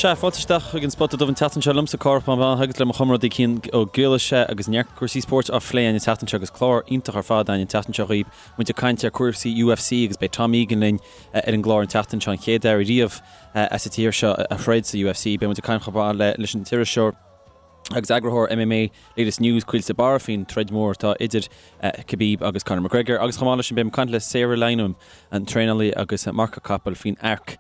Sea, fáilte isteach chuig an Spota Dubh an tseachtain seo liomsa Cárthach Mac Mathúna agus le mo chomrádaí Cian Ó Griallais agus neart cúrsaí spóirt á phlé againn an tseachtain seo agus clár iontach ar fad againn an tseachtain seo dhaoibh. Muid ag caint ar cúrsaí UFC agus beidh Tom Egan linn ar an gclár an tseachtain seo, an chéad fhear riamh as an tír seo a throid sa UFC. Beidh muid ag caint chomh maith leis an t-iriseoir agus eagarthóir MMA Latest News, Caoilte de Barra, faoin troid mhór atá idir Khabib agus Conor McGregor agus chomh maith leis sin beidh muid ag caint le Sarah Lynam, an traenálaí agus marcach capaill faoin Arc.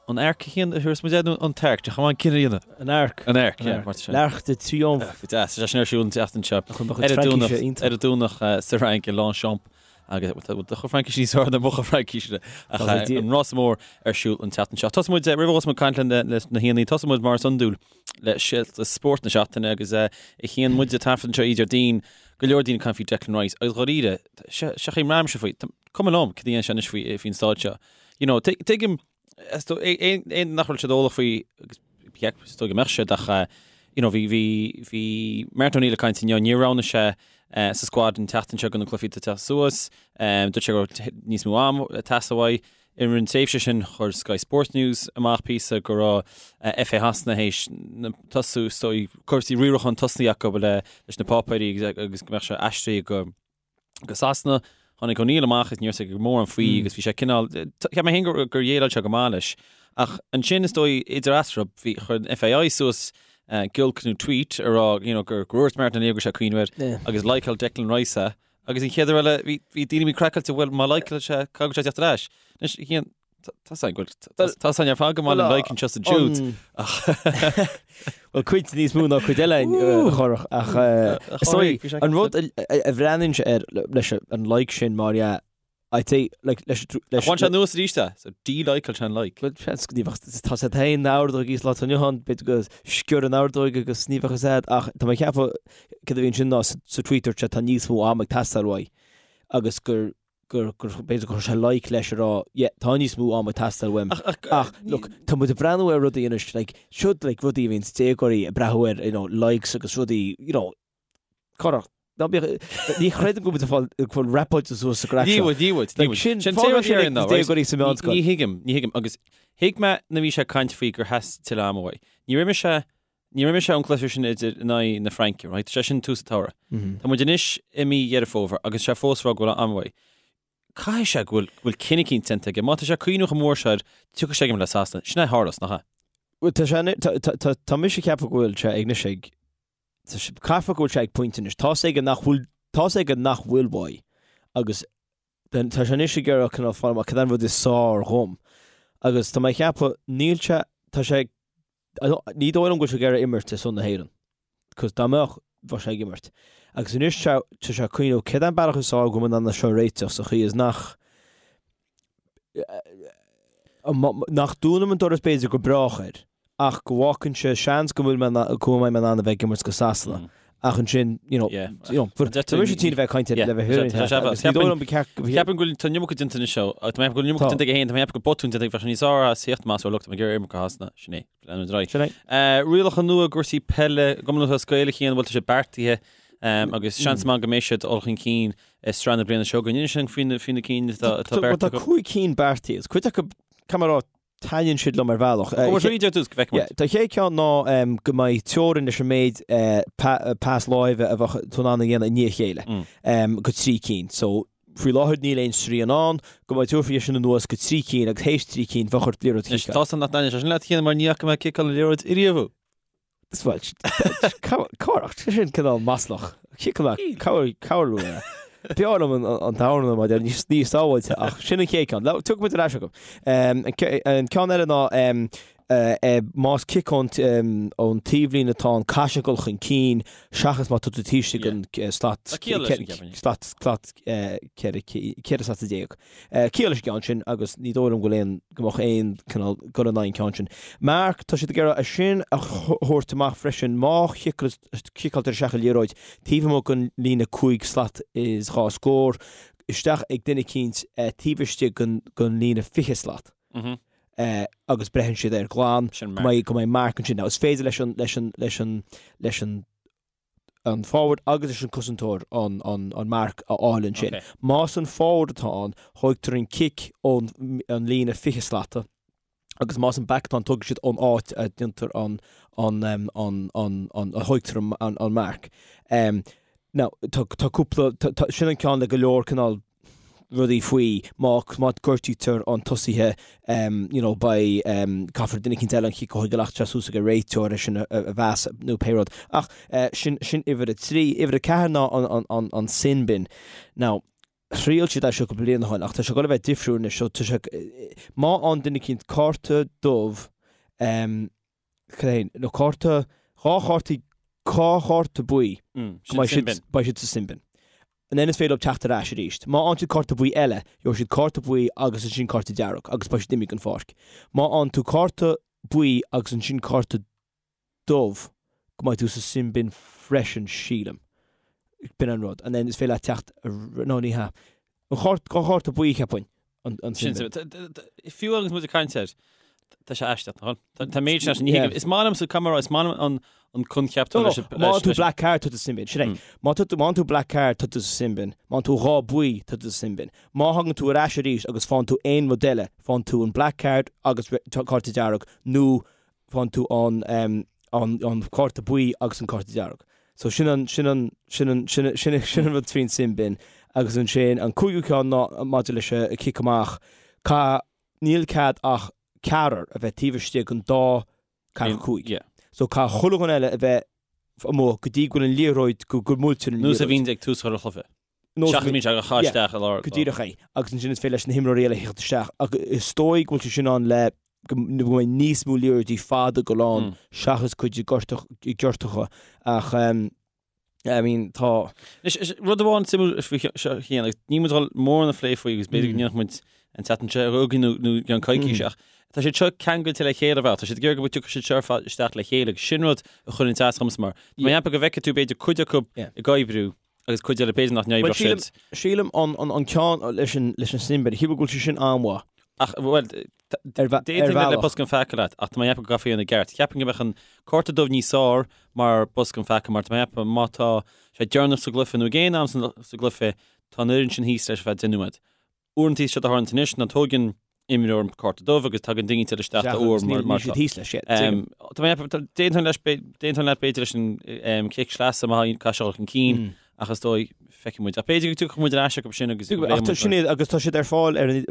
An Arc a Chian a thabharfas muid air nó an tArc? Deich amháin cinneadh a dhéanamh. An Arc. An Arc, yeah, mar sin. L'Arc de Triomphe. Go deas. Tá sé sin ar siúl an tseachtain seo. Ar an Domhnach, ar an Domhnach sa Fhrainc i Longchamp agus bhfuil do chuid Fraincise níos fearr ná mo chuid Fraincise ach an rása mór ar siúl an tseachtain seo. Tosóidh muid, roimh a thosóidh muid ag caint leis na haíonna, tosóidh muid mar is iondúil le scéalta spóirt na seachtaine agus a Chian muid ag taifead anseo Déardaoin, go leor daoine ag caint faoi Declan Rice agus dháiríre, seo chaoi mbraithimse faoi, cuma liom cad a dhéanann sé anois faoin staid seo. You know, tuigim, aon nach bhfuil siad eolach faoi, agus is dóigh go mbeadh siad ach, you know, bhí, bhí, bhí Martin O'Neill ag caint inniu, níor roghnaigh sé sa squad an tseachtain seo do na cluichí atá ag teacht suas, dúirt sé go raibh níos mó am ag teastáil uaidh. I rith an tréimhse sin, chuir Sky Sports News amach píosa go raibh FA Shasana théis tosú, is dóigh, cúrsaí riaracháin tosnaithe acu leis na páipéirí agus go mbeadh sé aistrithe go go Sasana. Tháinig O'Neill amach is ní raibh sé mórán faoi agus bhí sé cineál, cheap mé féin gur dhéileáil sé go maith leis. Ach ansin is dóigh idir eatarthu bhí, chuir an FAI suas giolc nó tweet a rá you know gur dhúirt Martin O'Neill go raibh sé ag cuimhniú air agus likeáil Declan Rice é agus an chéad uair eile bhí bhí daoine bhí craiceáilte bhuel má likeáil sé caithfidh sé teacht ar ais. Anois Tá 's againn ar fad go maith le like anseo sa Jude. Bhuel cuid níos mó ná cuid eile a Chárthach ach is dóigh an rud a bhreathnaíonn sé air leis an like sin mar dhea I'd say like leis leis Bhain sé anuas arís é, so de-likeáil sé an like. Bhuel seans go ní bheadh tá sé féin an ordóg is lá inniu ann b'fhéidir go sciorr an ordóg agus ní bheadh fhios a'd ach tá mé ag ceapadh cad a bhí ansin ná sa tweet dúirt sé tá níos mó ama ag teastáil uaidh agus gur gur, gur, b'fhéidir gur chuir sé like leis a rá, yeah, tá níos mó ama ag teastáil uaim. Ach, ach, Ach, look, tá muid ag breathnú ar rudaí anois, like, siod, like, rudaí a bhíonns déagóirí ag breathnú ar, you know, likes agus rudaí, you know, Cárthach, ná bíodh, ní chreidim go bhfuil muid ag fáil, ag fáil rapáilte suas sa gcraic Ní seo. bhfuil, ní bhfuil, ní Like, bhfuil. sin, Sin fágann téama sin ar ag ná, right? déagóirí sa mheánscoil. Ní thuigim, ní thuigim, agus thuig mé nuair a bhí sé ag caint faoi gur theastaigh tuilleadh ama uaidh. Ní raibh mise, ní raibh mise ón gcluiche sin idir in aghaidh na Fraince, right? Tá sé sin tús an tsamhraidh. Tá muid anois i mí Dheireadh Fómhair agus sé fós ag rá go bhfuil am uaidh. Caithfidh sé go bhfuil, go bhfuil cinneadh eicínt déanta aige. Má tá sé ag cuimhniú chomh mór seo air, tiocfaidh sé ag imirt le Sasana. Sin é a tharlós, nach ea? Bhuel, tá sé, tá, tá, tá, tá mise ag ceapadh go bhfuil sé ag anois ag, tá sé, caithfidh go bhfuil sé ag pointe anois. Tá's aige nach bhfuil, tá's aige nach bhfuil uaidh agus then tá sé anois ag iarraidh cineál fáil amach cad é an rud is fearr dhom. Agus tá mé ag ceapadh, níl sé, tá sé, ní dóigh liom go bhfuil sé ag iarraidh imirt ar son na hÉireann. Cos dá mbeadh, bheadh sé ag imirt. Agus anois tá sé ag cuimhneamh cad é an bealach is fearr go bhfuil mé in ann é seo a réiteach sa chaoi is nach, nach dúnaim an doras b'fhéidir go brách air, ach go bhfágann sé seans go bhfuil mé go mbeidh mé in ann a bheith ag imirt go Sasana. Ach ansin, you know, you know, tá mise tinn a bheith ag caint le bheith agus ní dóigh liom go ceart Ceapaim go bhfuil tá an iomarca déanta anois seo, tá mé ag ceapadh go bhfuil an iomarca déanta aige féin, tá mé ag ceapadh go bhfuil botún déanta aige, bheadh sé níos fearr as theacht amach is rá look, tá mé ag iarraidh imirt go Sasana, sin é. Leanfaimid ar aghaidh. Sin é. Rialacha nua i gcúrsaí peile, i gCumann Lúthchleas Gael a Chian, bhfuil tá sé beartaithe agus seans maith go mbeidh siad ag dul chun cinn i sraith na bliana seo chugainn. Inis dúinn faoi na faoi na cinn atá atá beartaithe. Tá 5 cinn beartaithe, agus cuid acu, caithfidh mé a rá, taitníonn siad liom ar bhealach. Gabh tríd ar dtús go bhfeicfidh muid. Tá chéad ceann ná go mbeidh teorainn leis an méid pas láimhe a bheadh tú in ann a dhéanamh i ndiaidh a chéile go 3 cinn. So, faoi láthair níl aon srian ann, go mbeidh tabharfaí é sin anuas go 3 cinn agus théis 3 cinn bheadh ort liathróid a chiceáil. Tá san nach n-aithneoidh sé sin leat a Chian mar ní fhaca mé ciceáil na liathróid ariamh thú. Bhuel, cárach, sin cineál maslach. Ciceáil mé, cabhair liom. B'fhearr liom an t-amhrán mar níos níos sábháilte ach sin an chéad ceann. Tiocfaidh muid ar ais chucu. An ceann eile ná más cic ón ón taobhlíne atá ann caithfidh sé dul chun cinn seachas má tá tú taobh istigh den slat slat slat 14 slat. Ciall leis an gceann sin agus ní dóigh liom go bhfuil aon, go mbeadh aon cineál dul in aghaidh an ceann sin. Marc, tá siad ag iarraidh é sin a thabhairt amach freisin, má chiceáiltear isteach an liathróid taobh amuigh den líne 5 slat is 2 scór, isteach ag duine eicínt taobh istigh den líne 20 slat agus braitheann siad air glan, go mbeidh, go mbeidh marc ansin. Now is féidir leis an, leis an, leis an, leis an, an forward agus leis an cosantóir an an marc a fháil ansin. Más an forward atá ann, thóigtear an cic ón an líne 20 slata. Agus más an back atá ann, tógfaidh siad ón áit a déantar an, an, an, an, an, a thóigtear an, an, an marc. Now, tá, tá cúpla, tá, tá, sin an ceann le go leor cineál rudaí faoi, má, má gortaítear an tosaithe, you know, beidh, caithfear duine eicínt eile an chic a thógáil ach tá suas ag an réiteoir é sin a, a mheas nó pé rud. Ach, sin, sin uimhir a 3. Uimhir a 4 ná an, an, an, an sin bin. Now, Thriail siad é seo cúpla bliain ó shin ach tá sé ag dul a bheith difriúil anois so tá sé, má fhaigheann duine eicínt cárta dubh, cad é, nó cárta, dhá chártaí, dhá chárta buí, go mbeidh siad, beidh siad sa sin bin. And then is féidir leo teacht ar ais arís. Má fhaigheann siad cárta buí eile, gheobhaidh siad cárta buí agus ansin cárta dearg agus beidh siad imithe den pháirc. Má fhaigheann tú cárta buí agus ansin cárta dubh go mbeidh tú sa sin bin freisin sílim. B'in an rud. And then is féidir leat teacht no ní hea. An chárt, dhá chárta buí cheapfainn an an sin bin. Fiú agus muid ag caint air, tá sé aisteach, nach bhfuil? Tá méid sin ní Is maith liomsa caithfidh mé a rá, is maith liom an an coincheap No, no, má tú black card tá tú sa sin bin. Sin é. Má tá tú má tú black card tá tú sa sin bin. Má tú dhá buí tá tú sa sin bin. Má thagann tú ar ais arís agus faigheann tú aon rud eile, faigheann tú an black card agus cárta dearg nó faigheann tú an an an cárta buí agus an cárta dearg. So sin an sin an sin an sin sin sin an rud faoin sin bin agus ansin an cúigiú ceann ná maidir leis an cic amach ca níl cead ach ceathrar a bheith taobh istigh den dá ceathracha 5. Yeah. So caithfidh chuile dhuine eile a bheith amuigh go dtí go bhfuil an liathróid go go mbuailtear an liathróid. Nós a bhíonn ag tús chuile chluiche. Seachas bíonn sé á chaitheamh isteach i lár. Go díreach é. Agus ansin is féidir leis na himreoirí eile theacht isteach. Ach is dóigh go bhfuil sé sin ann le go mbeidh níos mó liathróidí fada ag dul ann seachas cuid giortacha. Ach I mean tá. Anois, rud amháin suimiúil faoi seo a Chian, agus níl muid ag dul mórán a phlé faoi agus b'fhéidir go ndéanfadh muid an tseachtain seo chugainn nó i gceann coicíse ach tá siad seo ceangailte le chéile ar bhealach. Tá siad ag iarraidh go dtiocfaidh siad seo ar fad isteach le chéile agus sin rud a chuireann as domsa mar tá mé ag ceapadh go bhfeicfidh tú b'fhéidir cuid acu ag oibriú agus cuid eile b'fhéidir nach n-oibreodh siad. Sílim an ceann leis an leis an sin bin, sílim go bhfuil sé sin an-mhaith. Ach, bhuel, d'aontóinn le bosca an pheaca leat, ach tá mé ag ceapadh go gcaithfí é a dhéanamh i gceart. Cheapfainn go mbeadh an cárta dubh níos fearr mar bosca an pheaca, mar tá mé ag ceapadh má tá sé deireanach sa gcluiche nó ag aon am sa gcluiche, tá an fhoireann sin thíos leis ar feadh 10 nóiméad. Uaireanta is é a tharlaíonn anois ná tóigeann imreoir an cárta dubh agus tagann duine eile isteach dá uair mar mar seo. Thíos leis, yeah. Tá mé ag ceapadh, d'aontóinn leis, d'aontóinn leat b'fhéidir leis an cic sleasa má caithfidh sé dul chun cinn ach is dóigh feicfidh muid. Ach b'fhéidir go dtiocfaidh muid ar ais acu sin agus go Ach tá sin iad agus tá siad ar fáil ar an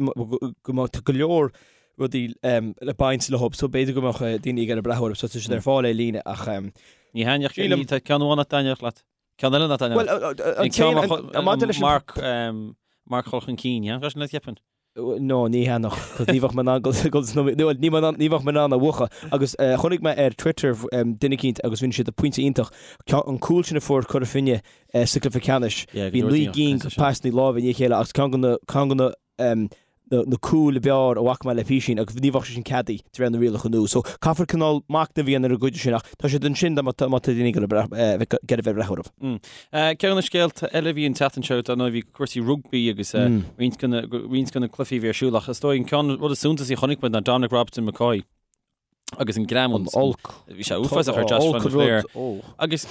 go mbeadh tá go leor rudaí le baint leo so b'fhéidir go mbeadh daoine ag iarraidh breathnú orthu so tá siad ar fáil ar líne ach Ní thaitneodh, tá ceann amháin nach dtaitneodh leat. Ceann eile nach dtaitneodh. Bhuel, an ceann maidir leis an marc marc dul chun cinn, yeah? Sin leat cheapfainn. No, ní thaitneodh, cos ní bheadh mé in ann dul ní bheadh mé in ann a mhúchadh. Agus chonaic mé ar Twitter duine eicínt agus rinne siad pointe iontach, an cúl sin a fuair Cora Finne sa gcluiche ceannais, bhí 9 gcinn de pasanna láimhe i ndiaidh a chéile agus ceann de na ceann de na na cúil ab fhearr a bhfaca mé le písín agus ní bheadh sé sin ceadaithe de réir na rialacha nua. So caithfear cineál machnamh a dhéanamh ar an gcuid sin ach tá siad ansin dá má tá daoine ag iarraidh bheith ag breathnú orthu. Ceann de na scéalta eile a bhí an tseachtain seo dar ndóigh bhí cúrsaí rugbaí agus roinnt de na roinnt de na cluichí a bhí ar siúl ach is dóigh an ceann rud is suntasaí a chonaic muid ná Dominic Robertson McCoy agus an greamú. An olc. Bhí sé uafásach ar Josh van der Flier. Agus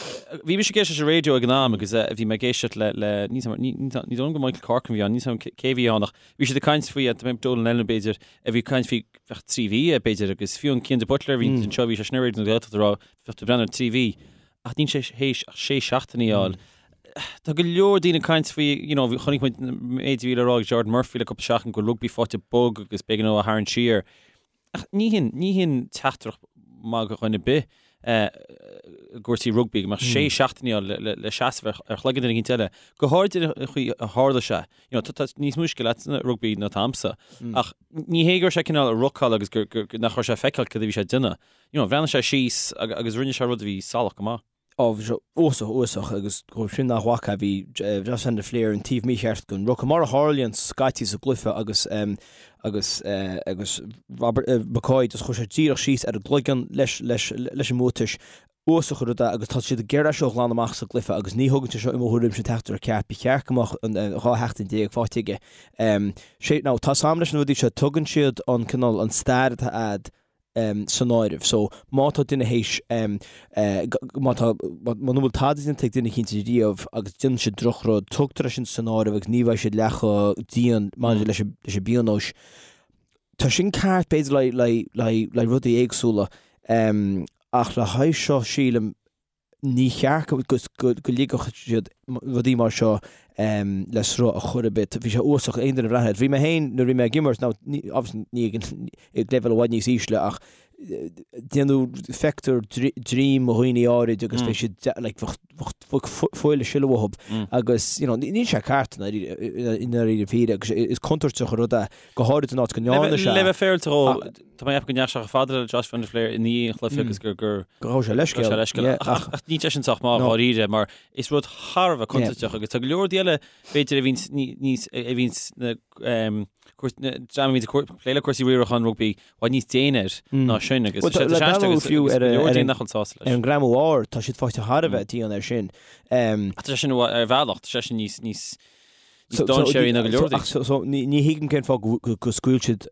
bhí mise ag éisteacht leis an raidió ag an am agus bhí mé ag éisteacht le le ní ní dóigh liom gur Michael Corcoran a bhí ann, níl 's agam cé bhí ann ach bhí siad ag caint faoi Donal Lennon b'fhéidir a bhí ag caint faoi bheadh 3 mhí b'fhéidir agus fiú an Cian de Buitléar a bhí anseo bhí sé sin ar Raidió na Gaeltachta ag rá bheadh tú ag breathnú ar 3 mhí ach níl sé théis ach 6 seachtainí a fháil. Tá go leor daoine ag caint faoi, you know, chonaic muid méid a bhí le rá ag George Murphy le cúpla seachtain go bhfuil rugbaí faighte bog agus b'éigean dó a tharraingt siar. Ach ní hin, ní hin teachtaireacht maith do dhuine ar bith i gcúrsaí rugbaí go mbeadh sé seachtainí ann le seasamh ar chloigeann duine éicint eile, go háirid an chaoi a tharla sé. You know, tá níos mó scil agat sa rugbaí ná atá a'msa. Ach ní hé go raibh sé cineál ag rucáil agus gur, gur, nach raibh sé ag feiceáil cad a bhí sé ag déanamh. You know, bhreathnaigh sé síos agus rinne sé rud a bhí salach go maith. Á, bhí sé uafásach, uafásach agus dóibh sin nach bhfaca, bhí Josh van der Flier an taobh mícheart den ruca, mar a tharlaíonn scaití sa gcluiche agus agus agus Robert McCoy just chuir sé díreach síos ar an gcloigeann leis leis leis an mbuatais. Uafásach an rud é agus tá siad ag iarraidh é seo a ghlanadh amach sa gcluiche agus ní thugann sé seo i mo thuairimse an teachtaireacht ceart. Ba cheart go mbeadh an 12 sheachtain faighte aige. Sé, now tá 's a'm leis na rudaí seo, tugann siad an cineál an stair atá a'd san áireamh. So, má tá duine théis, má tá, muna bhfuil tada déanta ag duine eicínt riamh agus déanann siad drochrud, tugtar é sin san áireamh agus ní bheidh siad leath chomh dian maidir leis an, leis an bpionós. Tá sin ceart b'fhéidir le le le le rudaí éagsúla ach le haghaidh seo sílim ní cheart go go go ligfeadh siad rudaí mar seo le sruth ar chor ar bith. Bhí sé uafásach aon duine a bhreathnaigh air. Bhí mé féin nuair a bhí mé ag imirt, now ní obviously ní ag an ag leibhéal i bhfad níos ísle ach déanadh feictear droim dhaoine áirid agus bhí siad like bheadh bheadh fuil ag sileadh uathu agus you know níl sé ceart i ndáiríre píre agus is contúirteach an rud é go háirid in áit go ndearna sé. Le bheith féaráilte dhó, tá mé ag ceapadh go ndeachaigh sé chomh fada le Josh van der Flier i ndiaidh an chluiche agus gur gur go raibh sé leithscéal. Go raibh sé leithscéal. Ach ach níl sé sin sách maith dháiríre mar is rud thar a bheith contúirteach agus tá go leor rudaí eile b'fhéidir a bhíonns níos a bhíonns na dream a bhíonns ag plé le cúrsaí riaracháin rugbaí i bhfad níos déine air ná sin agus tá sé aisteach agus go leor daoine nach bhfuil sásta leis. Ar an ngreamú óir, tá siad faighte thar a bheith dian air sin. Ach tá sé sin ar bhealach, tá sé sin níos níos níos dainséaraí ná go leor daoine. So ní thuigim cén fáth go scaoil siad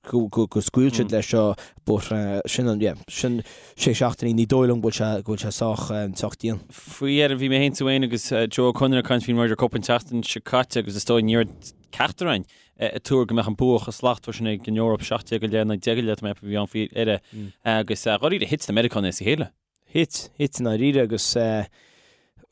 go scaoil siad leis seo but sin an yeah sin sé seachtainí ní dóigh liom go bhfuil sé go bhfuil sé sách sách dian. Faoi dheireadh bhí mé féin tú féin agus Joe Ó Conaire ag caint faoin Ryder Cup an tseachtain seo caite agus is dóigh ní raibh ceachtar againn ag tuar go mbeadh an bua chomh slachtmhar sin ag an Eoraip, 17 go leith, 19 go leith, tá mé ag ceapadh a bhí ann faoi dheireadh agus dháiríre thit na Meiriceánaigh as a chéile. Thit, thit i ndáiríre agus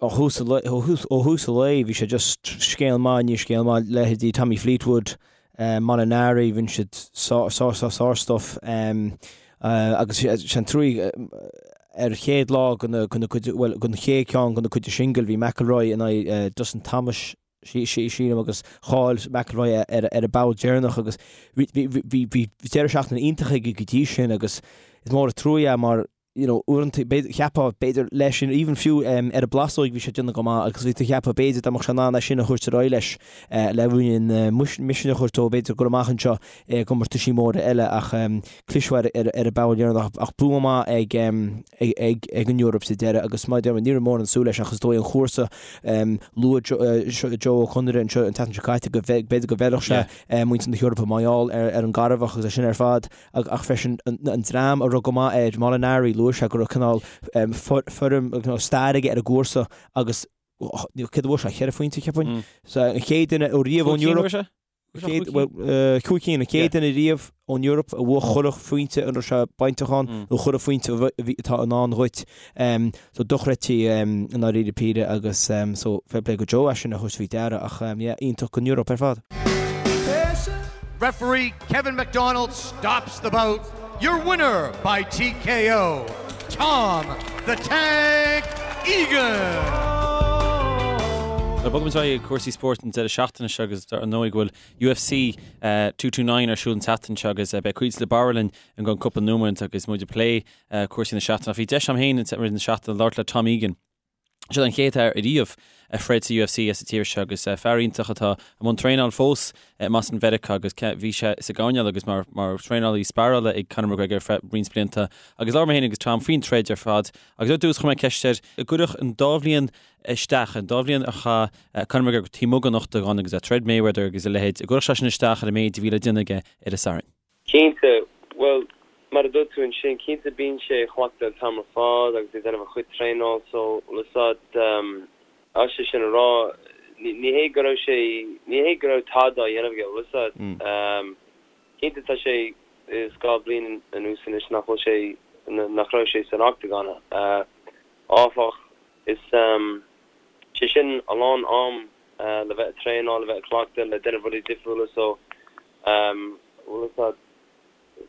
ó thús an lae, ó thús an lae bhí sé just scéal maith i ndiaidh scéal maith, leithéidí Tommy Fleetwood, Molinari, rinne siad sár, sár, sár, sár stuff agus sé an truaí ar chéad lá den, den cuid, bhuel, den chéad ceann den cuid singil bhí McIlroy in aghaidh Dustin Thomas, sílim agus chaill McIlroy ar an bpoll deireanach agus bhí deireadh seachtaine iontach aige go dtí sin agus is mór an trua é mar you know uaireanta cheapfá b'fhéidir leis sin even fiú ar an bplásóig bhí sé ag déanamh go maith agus bhí tú ag ceapadh b'fhéidir dá mbeadh sé in ann é sin a thabhairt ar aghaidh leis le ruainnín misnigh a thabhairt dó b'fhéidir gur amach anseo i gcomórtaisí móra eile ach cliseadh ar ar an bpoll deireanach ach bua maith ag ag ag an Eoraip sa deireadh agus mar a deir mé ní raibh mórán súil leis ach is dóigh an chúrsa luaigh Joe Ó Conaire anseo an tseachtain seo caite go b'fhéidir go bhfeilfeadh sé muintir na hEorpa mar gheall ar ar an gcarbhach agus é sin ar fad ach freisin an dream a raibh go maith air Molinari luaigh sé go raibh cineál foirm stair aige ar an gcúrsa agus céard a bhuaigh sé cheithre phointe cheapfainn so an chéad duine ó riamh ón Eoraip Cúig cinn, an chéad duine riamh ón Eoraip a bhuaigh chuile phointe a raibh sé bainteach ann, nó chuile phointe atá i ndán dhuit. So dochreidte i ndáiríre píre agus so fair play go Joe as sin a thabhairt faoi deara ach yeah, iontach don Eoraip ar fad. Referee Kevin McDonald stops the bout. Your winner by TKO, Tom the Tank Egan! Bogfaidh muid ar aghaidh ag cúrsaí spóirt an deireadh seachtaine seo agus ar ndóigh go bhfuil UFC 229 ar siúl an tseachtain seo agus beidh Caoilte de Barra linn i gceann cúpla nóiméad agus muid ag plé cúrsaí na seachtaine. Ach bhí deis agam féin i rith na seachtaine labhairt le Tom Egan. Seo an chéad fhear ariamh a throid sa UFC as an tír seo agus fear iontach atá i mbun traenáil fós i mBoston Mheiriceá agus bhí sé sa gcoirnéal agus mar mar thraenálaí sparála ag Conor McGregor ar feadh roinnt blianta agus labhair mé féin agus Tom faoin troid ar fad agus ar dtús chuir mé ceist air an gcuirfeadh an dá bhliain isteach, an dá bhliain a chaith Conor McGregor taobh amuigh den ochtagán agus ag troid Mayweather agus a leithéid, an gcuirfeadh sé sin isteach ar an méid a bhí le déanamh aige ar an Satharn. Cinnte, bhuel, mar a dúirt tú ansin, cinnte bíonn sé ag cleachtadh an t-am ar fad agus ag déanamh a chuid traenáil so, bhfuil a fhios a'd, as é sin a rá, ní hé go raibh sé, ní hé go raibh tada á dhéanamh aige, bhfuil a fhios a'd. Cinnte tá sé is 2 bliain anuas anois nach bhfuil sé, nach raibh sé san ochtagán, áfach, is, sé sin a lán am le bheith ag traenáil, le bheith ag cleachtadh, le déanamh rudaí difriúla so, Bhuel, is ea.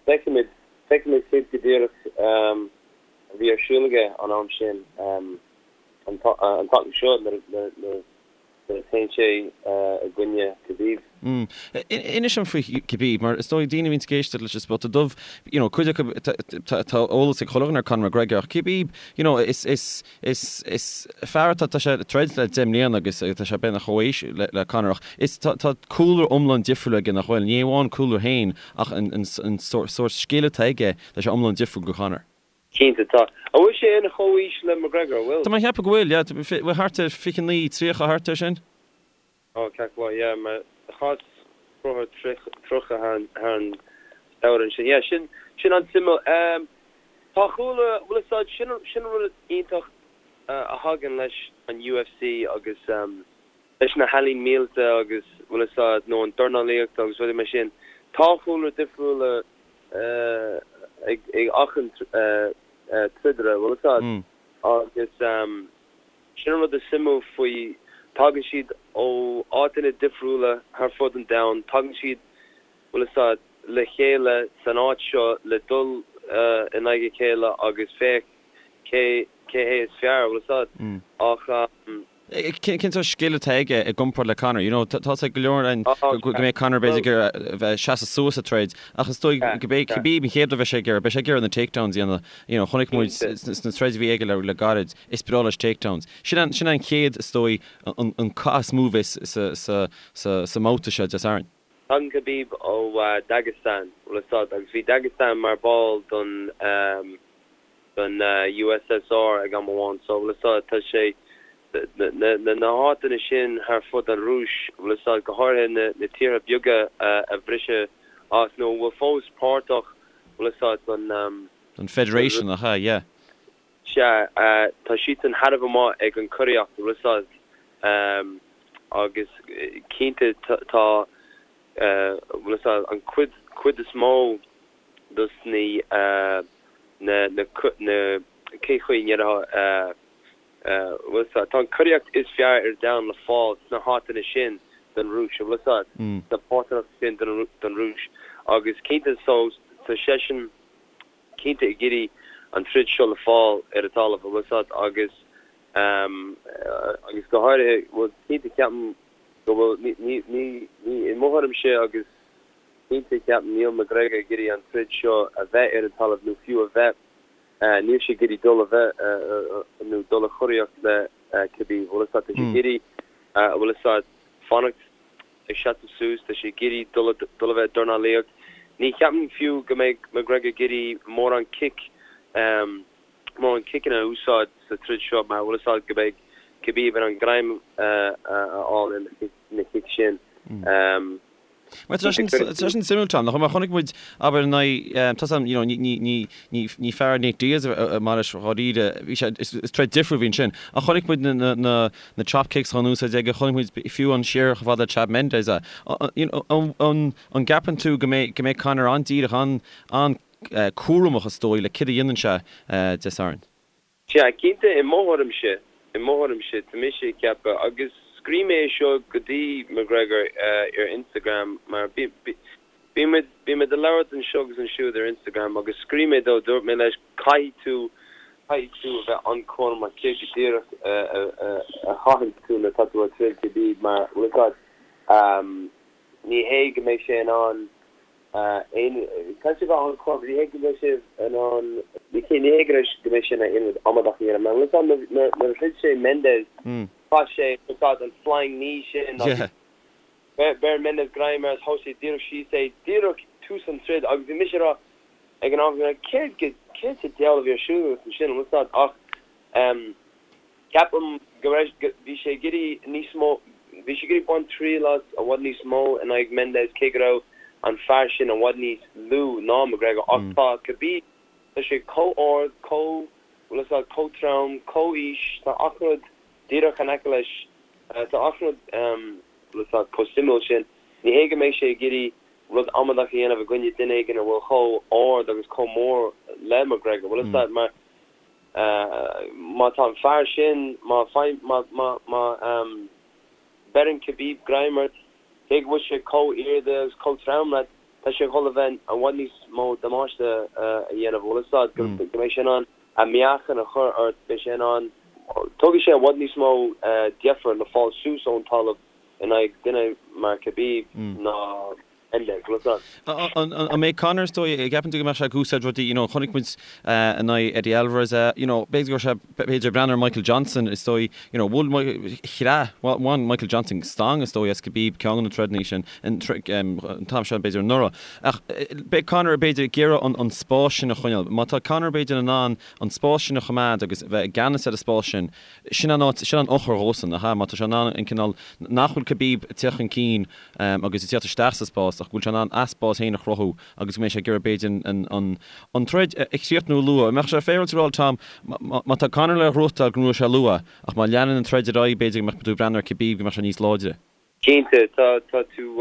Feicfimid, feicfimid céard go díreach a bhí ar siúl aige an am sin, an tseachtain seo nuair a théann sé i gcoinne Khabib. Inis dom faoi Khabib, mar is dóigh daoine a bhíonns ag éisteacht leis an Spota Dubh, you know, cuid acu, tá eolas ag chuile dhuine ar Conor McGregor, ach Khabib, you know, is, is, Is fear atá, tá sé ag troid le 10 mbliana agus tá sé beagnach chomh haois le Conor ach is, tá cúlra iomlán difriúil aige nach bhfuil? Ní amháin cúlra féin ach an sórt scil atá aige, tá sé iomlán difriúil go Conor. Cinnte tá. An bhfuil sé ina chomhaois le McGregor, an bhfuil? Tá mé ag ceapadh go bhfuil, yeah. Bhfuil thart ar 29, 30, thart ar sin? Ó, ceart go leor, yeah, mar chás croitheadh 30 thar an samhradh ansin. Yeah, sin, sin an-suimiúil. Tá chuala, bhfuil a fhios a'd, sin, sin an rud iontach a thagann leis an UFC agus leis na healaín míleata agus, bhfuil a fhios a'd, nó an dornálaíocht agus rudaí mar sin. Tá cúlra difriúla ag achan troidaire, bhfuil fhios a'd, agus sin an rud is suimiúil faoi, tagann siad ó áiteanna difriúla thar fud an domhain, tagann siad, bhfuil fhios a'd, le chéile san áit seo le dul in aghaidh a chéile agus féach cé cé hé is fearr, bhfuil fhios a'd, ach. Cén sórt scil atá aige i gcomparáid le Conor? You know, tá sé go leor ann go mbeidh Conor b'fhéidir ag iarraidh a bheith seasamh suas sa troid ach is dóigh go mbeidh Khabib an chéad rud a bheidh sé ag iarraidh, beidh sé ag iarraidh na takedowns a dhéanamh. You know, chonaic muid sna troid a bhí aige le gairid, is breá leis takedowns. Sin an, sin an chéad, is dóigh, an, an cath is mó a bheas sa, sa, sa, sa mbabhta seo Dé Sathairn. Tagann Khabib ó Dagestan, bhfuil fhios a'd, agus bhí Dagestan mar ball don, don USSR ag am amháin so bhfuil fhios a'd tá sé na na háiteanna sin thar fud an Rúis bhfuil fhios a'd go háirithe na na tíortha beaga a briseadh as nó a bhfuil fós páirteach bhfuil fhios a'd don Don Federation nach ea yeah. Sea tá siadsan thar a bheith maith ag an coraíocht bhfuil fhios a'd agus cinnte tá bhfuil fhios a'd an cuid cuid is mó dos na na na na cén chaoi a ndéarfá bhfuil fhios a'd tá an choraíocht is fearr ar domhan le fáil sna háiteanna sin den Rúis bhfuil fhios a'd sna páirteanna sin den den Rúis agus cinnte so tá seisean cinnte ag iarraidh an troid seo le fáil ar an talamh bhfuil fhios a'd agus agus go háirithe bhuel cinnte ceapaim go bhfuil ní ní ní ní i mo thuairimse agus Cinnte, ceapaim, níl McGregor ag iarraidh an troid seo a bheith ar an talamh nó fiú a bheith, níl sé ag iarraidh dul a bheith nó dul a choraíocht le Khabib, bhfuil fhios a'd, tá sé ag iarraidh, bhfuil fhios a'd, fanacht ag seasamh suas, tá sé ag iarraidh dul a dul a bheith ag dornálaíocht. Ní cheapaim fiú go mbeidh McGregor ag iarraidh mórán cic, mórán ciceanna a úsáid sa troid seo mar bhfuil fhios a'd go mbeidh Khabib in ann greim a fháil ar na cic sin. Mar tá sin suimiúil Tom, nach mar chonaic muid abair in aghaidh tá you know ní ní ní ní fear Nate Diaz mar is dháiríre bhí sé is troid difriúil a bhí ansin ach chonaic muid na na na na chop kicks á n-úsáid aige chonaic muid fiú an siar chomh fada le Chad Mendes é you know an an an gceapann tú go mbeidh go mbeidh Conor an-díreach an an cúramach is dóigh le céard a dhéanann sé Dé Sathairn? Sea, cinnte, i mo thuairimse, i mo thuairimse, tá mise ag ceapadh, agus scríobh mé é seo go dtí McGregor ar Instagram, mar bímid, bímid ag labhairt anseo agus ansiúd ar Instagram, agus scríobh mé dó, dúirt mé leis, caithfidh tú, caithfidh tú a bheith an-chúramach céard go díreach a chaitheann tú nuair atá tú ag troid Khabib, mar, bhfuil a fhios agat, ní hé go mbeidh sé in ann aon caithfidh sé bheith an-chúramach, ní hé go mbeidh sé in ann, ní hé go mbeidh sé in ann aon rud amadach a dhéanamh, mar bhfuil a fhios agat nuair a throid sé Mendes, chaith sé, bhfuil a fhios agat, an flying knee sin agus bheir Mendes greim air agus thóg sé díreach síos é, díreach tús an troid agus bhí mise ag rá ag an am, céard go, céard sa diabhal a bhí ar siúl agat ansin, bhfuil a fhios agat, ach. Ceapaim go raibh, bhí sé ag iarraidh níos mó, bhí sé ag iarraidh baint triail as i bhfad níos mó in aghaidh Mendes cé go raibh an fear sin i bhfad níos lú ná McGregor ach tá Khabib, tá sé chomh ard, chomh, bhfuil a fhios agat, chomh trom, chomh aois, tá achan rud díreach in aice leis, tá achan rud, bhfuil a fhios agat, chomh suimiúil sin. Ní hé go mbeidh sé ag iarraidh rud amadach a dhéanamh i gcoinne duine éigin a bhfuil chomh ard agus chomh mór le McGregor, bhfuil a fhios agat, mar. Má tá an fear sin, má má má má bheireann Khabib greim ort, cé go bhfuil sé chomh airde agus chomh trom leat, tá sé ag dul a bheith i bhfad níos mó damáiste a dhéanamh. Bhfuil a fhios agat go mbeidh sé in ann a meáchan a chur ort, beidh sé in ann, tógfaidh sé i bhfad níos mó deifir le fáil suas ón talamh in aghaidh duine mar Khabib ná An mbeidh Conor, is dóigh, an gceapann tú go mbeadh sé ag úsáid rudaí, you know, chonaic muid in aghaidh Eddie Alvarez é, you know, b'fhéidir go raibh sé, b'fhéidir ag breathnú ar Michael Johnson, is dóigh, you know, bhuail, chreath, bhain Michael Johnson stangadh, is dóigh, as Khabib ceann de na troideanna sin, an t-am seo, b'fhéidir anuraidh. Ach beidh Conor, b'fhéidir, ag iarraidh an spás sin a choinneáil. Má tá Conor, b'fhéidir, in ann an spás sin a choimeád agus a bheith i gceannas ar an spás sin, Sin an áit, sin an eochair dhósan, nach ea? Má tá sé in ann an cineál, nach bhfuil Khabib ag teacht chun cinn agus ag teacht isteach sa spás ach go bhfuil sé in ann a spás féin a chruthú agus go mbeidh sé ag iarraidh b'fhéidir an, an, an troid a chríochnú luath. An mbeadh sé féaráilte a rá, Tom, má tá Conor le gnóthachtáil go ngnóthóidh sé luath ach má leanann an troid ar aghaidh b'fhéidir go mbeadh tú ag breathnú ar Khabib go mbeadh sé níos láidre? Cinnte, tá, tá tú.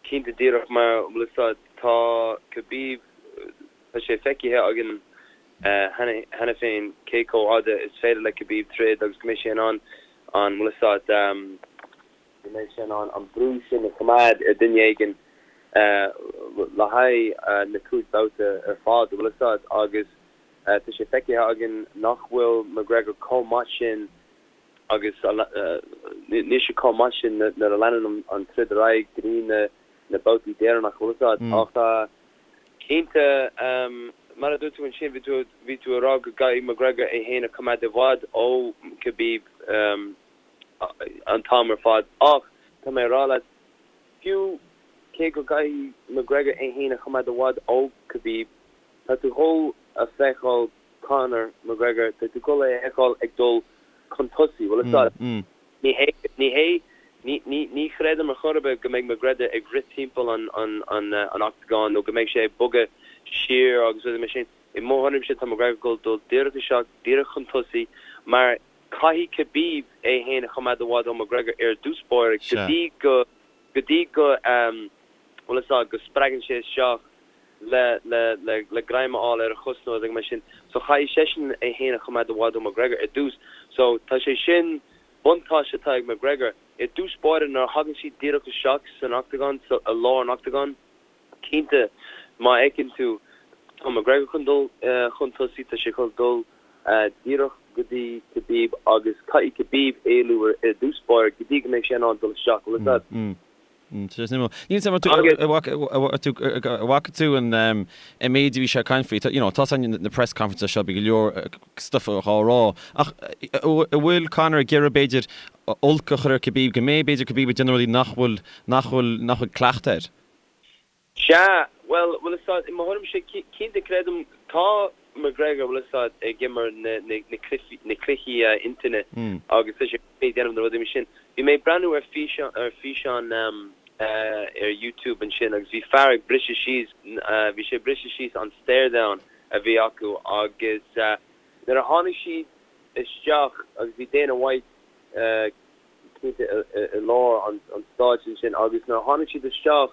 Cinnte díreach mar bhfuil fhios a'd tá Khabib tá sé feicthe againn cheana féin cé chomh fhada is féidir le Khabib troid agus go mbeidh sé in ann an bhfuil fhios a'd go mbeidh sé in ann an brú sin a choimeád ar duine éigin le haghaidh na 5 babhta ar fad bhfuil fhios a'd agus tá sé feicthe againn nach bhfuil McGregor chomh maith sin agus níl sé chomh maith sin nuair a leanann an troid ar aghaidh go dtí na babhtaí deireanacha, bhfuil fhios a'd. Ach cinnte, mar a dúirt tú ansin, bhí tú, bhí tú ag rá go gcaithfidh McGregor é féin a choimeád i bhfad ó Khabib an t-am ar fad. Ach tá mé ag rá leat, fiú cé go gcaithfidh McGregor é féin a choimeád i bhfad ó Khabib, tá tú dhul a feiceáil Conor McGregor, tá tú dhul é a fheiceáil ag dul chun tosaigh, bhfuil fhios a'd. Ní hé, ní hé, ní, ní, ní chreidim ar chor ar bith go mbeidh McGregor ag rith timpeall an, an, an, an octagán nó go mbeidh sé ag bogadh siar agus rudaí mar sin. I mo thuairimse tá McGregor ag dul dul díreach isteach, díreach chun tosaigh mar caithfidh Khabib é féin a choimeád i bhfad ó McGregor ar dtús báire go dtí go, go dtí go, bhfuil fhios a'd, go spreagann sé isteach le, le, le, le greim a fháil ar a chos nó rud mar sin. So chaithfidh seisean é fhéin a choimeád i bhfad ó McGregor ar dtús. So tá sé sin, buntáiste atá ag McGregor. I dtús báire nuair a thagann siad díreach isteach san octagán, sa, i lár an octagán, cinnte má fheiceann tú, tá McGregor chun dul chun tosaigh, tá sé chun dul díreach go dtí Khabib agus caithfidh Khabib éalú ar, ar dtús báire go dtí go mbeidh sé in ann dul isteach, bhfuil fhios a'd. Níl 'fhios a'm an bhfaca tú an méid a bhí sé ag caint faoi. You know, tá na press conferences seo, bíonn go leor stuff á rá. Ach an bhfuil Conor ag iarraidh b'fhéidir olc a chur ar Khabib, go mbeidh b'fhéidir Khabib ag déanamh rudaí nach bhfuil, nach bhfuil, nach bhfuil cleachtadh air? Sea, bhuel, bhfuil fhios a'd, i mo thuairimse, cinnte creidim, tá McGregor, bhfuil fhios a'd, ag imirt na, na, na cluichí, na cluichí intinne agus tá sé ag déanamh na rudaí mar sin. Bhí mé ag breathnú ar físeán, ar físeán ar YouTube ansin agus bhí fear ag briseadh síos, bhí sé ag briseadh síos an stare-down a bhí acu agus nuair a tháinig siad isteach agus bhí Dana White cinnte i lár an stáitse ansin agus nuair a tháinig siad isteach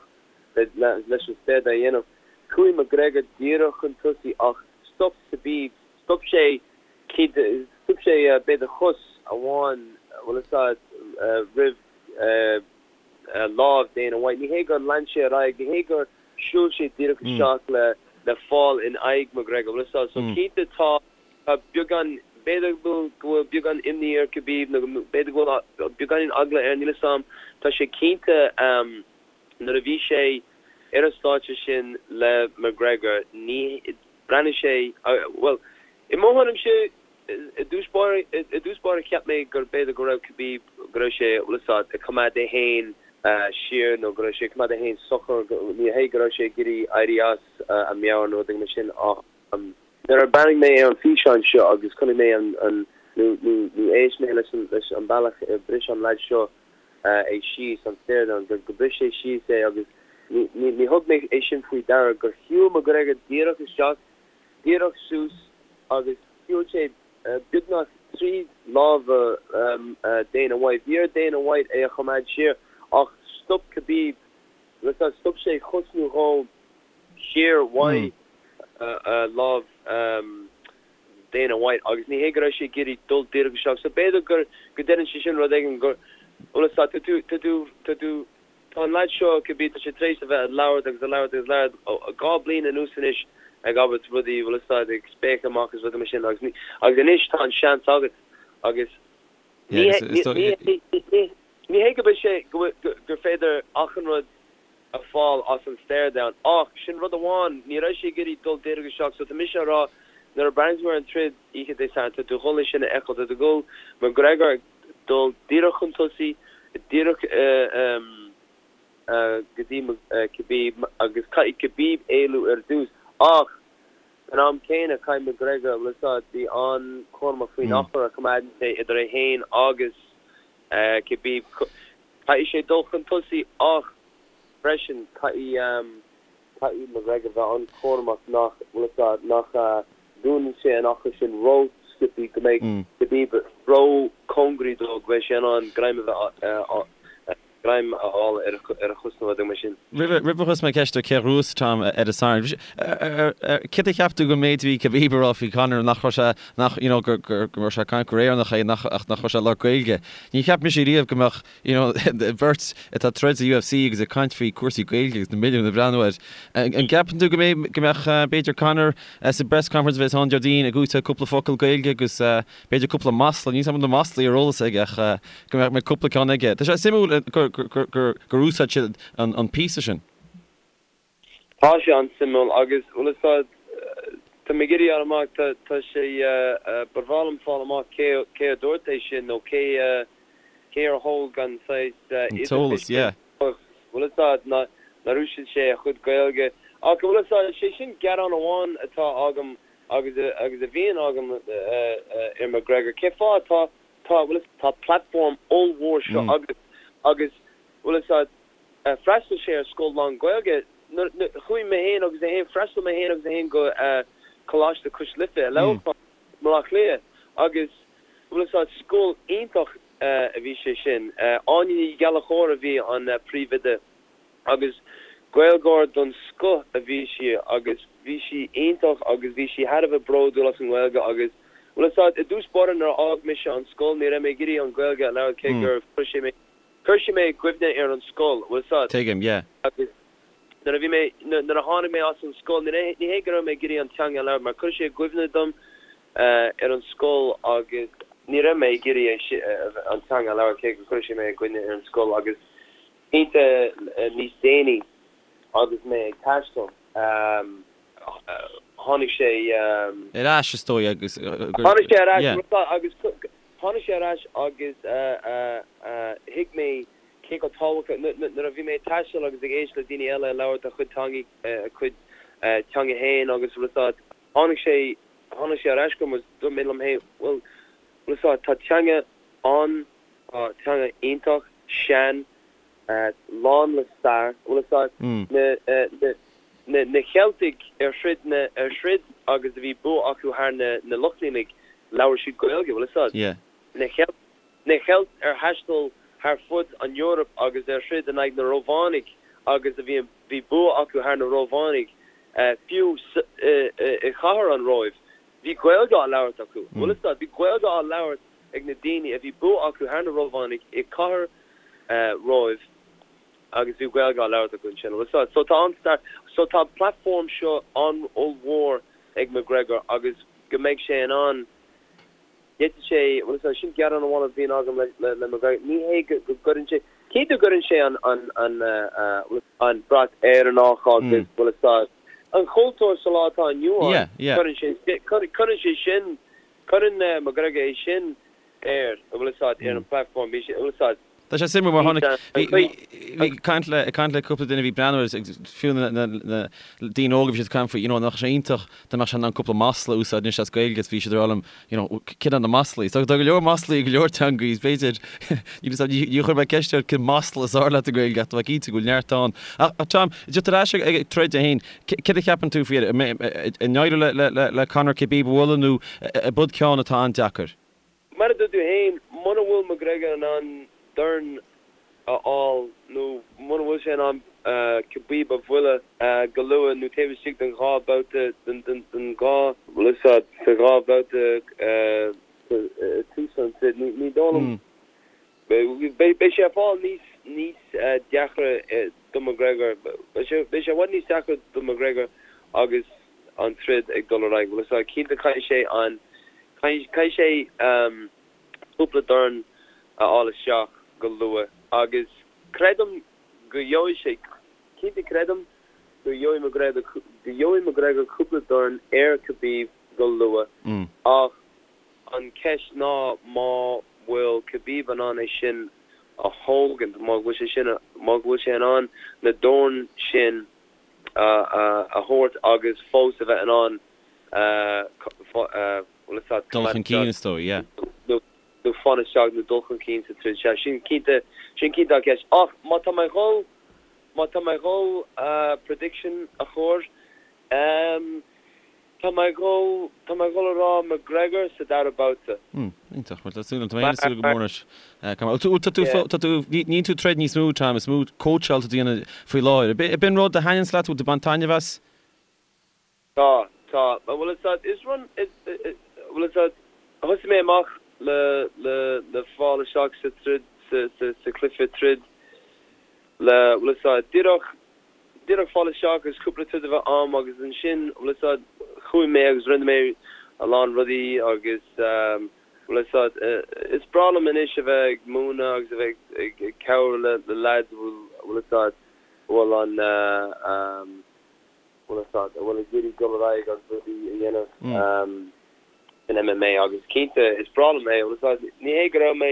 leis an stare-down a dhéanamh, chuaigh McGregor díreach chun tosaigh ach stop Khabib, stop sé cinnte, stop sé b'fhéidir cos amháin, bhfuil fhios a'd, roimh lámh Dana White. Ní hé gur lean sé ar aghaidh, ní hé gur shiúil sé díreach isteach le fáil in aghaidh McGregor, bhfuil fhios a'd. So cinnte tá. Tá beagán, b'fhéidir go bhfuil beagán imní ar Khabib nó b'fhéidir go bhfuil beagáinín eagla air, níl 'fhios a'm. Tá sé cinnte nuair a bhí sé ar an stáitse sin le McGregor, ní, bhreathnaigh sé, bhuel, i mo thuairimse, i dtús báire, i dtús báire cheap mé gur b'fhéidir go raibh Khabib, go raibh sé, bhfuil 'fhios a'd, ag coimeád é féin siar nó go raibh sé ag coimeád é féin socair, ní hé go raibh sé ag iarraidh éirí as a meabhair nó rud éigin mar sin ach. Nuair a bhreathnaigh mé ar an físeán seo agus chonaic mé an, an, nó, nó, nó éist mé leis an, leis an bealach ar bhris an leaid seo é síos, an stare-down, gur, gur bhris sé síos é agus ní, ní, ní thug mé é sin faoi deara gur shiúil McGregor díreach isteach, díreach suas agus shiúil sé beagnach tríd lámha Dana White. Bhí ar Dana White é a choimeád siar ach stop Khabib, stop sé chos nó dhó. siar uaidh lámh Dana White agus ní hé go raibh sé ag iarraidh dul díreach isteach so b'fhéidir gur go ndeireann sé sin rud éigin gur bhfuil fhios agat tá tú tá tú tá tú tá an leaid seo cibé tá sé tar éis a bheith ag labhairt agus ag labhairt agus ag labhairt ó 2 bliain anuas anois ag abairt rudaí bhfuil fhios agat ag spéacadh amach agus rudaí mar sin agus ní agus anois tá an seans agat agus ní hé ní ní ní hé go mbeidh sé go gur féidir achan rud a fáil as an stare down. Ach sin rud amháin, ní raibh sé ag iarraidh dul díreach isteach so tá mise a rá nuair a breathnaíonn tú ar an troid oíche Dé Sathairn tá tú ag dul é sin a fheiceáil, tá tú ag dul McGregor ag dul díreach chun tosaigh, díreach go dtí Khabib agus caithfidh Khabib éalú ar dtús ach san am céanna caithfidh McGregor, bhfuil fhios agat, bí an-chúramach faoin achar a choimeádann sé idir é féin agus Khabib. Caithfidh sé dul chun tosaigh ach freisin caithfidh caithfidh McGregor bheith an-chúramach nach, bhfuil fhios agat, nach dúnann sé an achar sin ró-sciobthaí go mbeidh Khabib ró-chóngaraí dó go mbeidh sé in ann greim a bheith. Greim a fháil ar a chos nó rud mar sin. Roimh a chuirfeas mé ceist ar cé a ghnóthós Tom ar an Satharn, céard a cheap tú den méid a bhí Khabib a rá faoi Conor, nach raibh sé, nach, you know, gur, gur, go raibh sé ag caint gur Éireannach é, nach, ach nach raibh sé ag labhairt Gaeilge. Ní cheap mise riamh go mbeadh, you know, beirt atá ag troid sa UFC agus ag caint faoi cúrsaí Gaeilge agus na milliúin ag breathnú air. An gceapann tú go mbeidh, go mbeadh, b'fhéidir Conor sa bpress conference a bheas ann Déardaoin ag úsáid cúpla focal Gaeilge agus, B'fhéidir cúpla masla, níl 's agam na maslaí ar eolas aige ach go mbeadh cúpla ceann aige. Tá sé suimiúil gur úsáid siad an píosa sin. Tá sé an-suimiúil agus, bhfuil 'fhios a'd, tá mé ag iarraidh fháil amach, tá sé, ba bhreá liom fáil amach cé cé a dúirt é sin nó cé cé ar thóg an saghas An t-eolas, yeah. Bhfuil 'fhios a'd, nár úsáid sé a chuid Gaeilge. Ach bhfuil 'fhios a'd, sé sin gearán amháin atá agam agus agus a bhíonn agam ar McGregor, cén fáth tá tá bhfuil 'fhios tá platform ollmhór seo agat agus bhfuil 'fhios a'd freastal sé ar scoil lán Gaeilge nuair chuaigh mé féin agus é féin freastal mé féin agus é féin go Coláiste Cois Life i Leamhcán i mBaile Átha Cliath agus bhfuil 'fhios a'd scoil iontach a bhí sé sin Áine Ní Ghallchóir a bhí an príomhoide. Agus Gaeilgeoir don scoth a bhí sí agus bhí sí iontach agus bhí sí thar a bheith bródúil as an nGaeilge agus, bhfuil 'fhios a'd, i dtús báire nuair a fhág mise an scoil ní raibh mé ag iarraidh an Ghaeilge a labhairt cé gur chuir sé mé, chuir sé mé i gcuimhne ar an scoil, bhfuil 'fhios a'd. Tuigim, yeah. Agus nuair a bhí mé, nuair a tháinig mé as an scoil, ní ní hé go raibh mé ag iarraidh an teanga a labhairt mar chuir sé i gcuimhne dom ar an scoil agus ní raibh mé ag iarraidh an teanga a labhairt cé gur chuir sé mé i gcuimhne ar an scoil agus Cinnte níos déanaí agus mé ag taisteal, tháinig sé. ar ais is dóigh agus gur. Tháinig sé ar ais agus tháinig sé ar ais agus thuig mé cé chomh tábhachtach, nuair a bhí mé ag taisteal agus ag éisteacht le daoine eile ag labhairt a chuid teangaí, a cuid teanga féin agus bhfuil 'fhios a'd, tháinig sé, tháinig sé ar ais chugam agus dúirt mé liom féin, bhuel, bhfuil 'fhios a'd, tá teanga an, Tá teanga iontach sean, lán le stair. Bhfuil 'fhios a'd, na na Ceiltigh ar throid na ar throid agus a bhí bua acu thar na na Lochlannaigh, labhair siad Gaeilge, bhfuil 'fhios a'd. Na Ceilt na Ceilt ar thaistil thar fud an Eoraip agus ar throid in aghaidh na Rómhánaigh agus a bhí bhí bua acu thar na Rómhánaigh, fiú i chathair an Róimh, bhí Gaeilge á labhairt acu, bhfuil 'fhios a'd. Bhí Gaeilge á labhairt ag na daoine a bhí bua acu thar na Rómhánaigh i cathair Róimh agus bhí Gaeilge á labhairt acu ansin. Bhfuil 'fhios a'd. So tá an-stair, so tá an platform seo an-ollmhór ag McGregor agus go mbeidh sé in ann, d'fhéadfadh sé, bhfuil 'fhios a'd, sin gearán amháin a bhíonn agam le le McGregor, ní hé go go gcuireann sé, cinnte gcuireann sé an an an bhfuil an brat Éireannach agus bhfuil 'fhios a'd, an chultúr sa lá atá inniu ann, cuireann sé, cuireann sé sin Cuireann McGregor é sin air, an bhfuil 'fhios a'd, ar an platform, bhí sé, an bhfuil 'fhios a'd. Tá sé suimiúil mar tháinig, bhí, bhí, ag caint le, ag caint le cúpla duine a bhí ag breathnú air agus fiú na, na, na daoine óga bhí siad ag caint faoi, you know, nach sé iontach dá mbeadh sé in ann cúpla masla a úsáid anois as Gaeilge is bhí siad ag rá liom, you know, céard iad na maslaí? So tá go leor maslaí i go leor teangaí is b'fhéidir, níl 'fhios a'm, ní, ní chuir mé ceist air cén masla is fearr leat i nGaeilge ach tá mé cinnte go bhfuil neart ann. Ach, ach Tom, just ar ais ag, ag troid é féin, Céard a cheapann tú faoi? An éireoidh le Conor Khabib a bhualadh nó ab id ceann atá an-deacair? Mar a dúirt tú féin, muna bhfuil McGregor in ann dorn a fháil nó muna bhfuil sé in ann Khabib a bhualadh go luath nó taobh istigh den dhá bhabhta, den dhá, bhfuil 'fhios a'd, sa dhá bhabhta i tús an troid, ní dóigh liom Beidh sé ag fáil níos níos deacra do McGregor. Beidh sé i bhfad níos deacra do McGregor agus an troid ag dul ar aghaidh. Bhfuil 'fhios a'd, cinnte caithfidh sé an caithfidh sé cúpla dorn a fháil isteach go luath agus creidim go gheobhaidh sé, cinnte creidim go gheobhaidh McGregor go gheobhaidh McGregor cúpla dorn ar Khabib go luath ach An cheist ná má bhfuil Khabib in ann é sin a thógaint, má bhfuil sé sin, má bhfuil sé in ann na doirn sin a thabhairt agus fós a bheith in ann bhfuil 'fhios a'd, Dul chun cinn is dóigh, yeah. nó fan isteach nó dul chun cinn sa troid. Sea, sin cinnte, sin cinnte an cheist. Ach má tá mé a dhul, má tá mé a dhul prediction a chur, ehm. Tá mé ag dhul, tá mé ag dhul a rá McGregor sa dara babhta. Hmm, iontach. Bhuel, tá súil agam, tá mé féin ag súil go mór leis. Bhuel, tá tú, tá tú, níl tú ag troid níos mó, Tom, is mó cóitseáil atá tú a dhéanamh faoi láthair. Ab in rud a thaitníonns leat, bhfuil tú ag baint taitneamh as? Tá, tá. Bhuel, is ea, is rud, is, bhuel, is ea, thosaigh mé amach le, le, le fáil isteach sa troid, sa, sa, sa chluiche troid le, bhuel, is ea, díreach, díreach fáil isteach agus cúpla troid a bheith a'm agus ansin, bhfuil fhios a'd, chuaigh mé agus rinne mé a lán rudaí agus, bhfuil fhios a'd, is breá liom anois a bheith ag múineadh agus a bheith ag cabhrú le leaids a bhfuil, bhfuil fhios a'd, a bhfuil an, bhfuil fhios a'd, a bhfuil ag iarraidh dul ar aghaidh agus rudaí a dhéanamh san MMA agus cinnte is breá liom é, bhfuil fhios a'd, ní hé go raibh mé,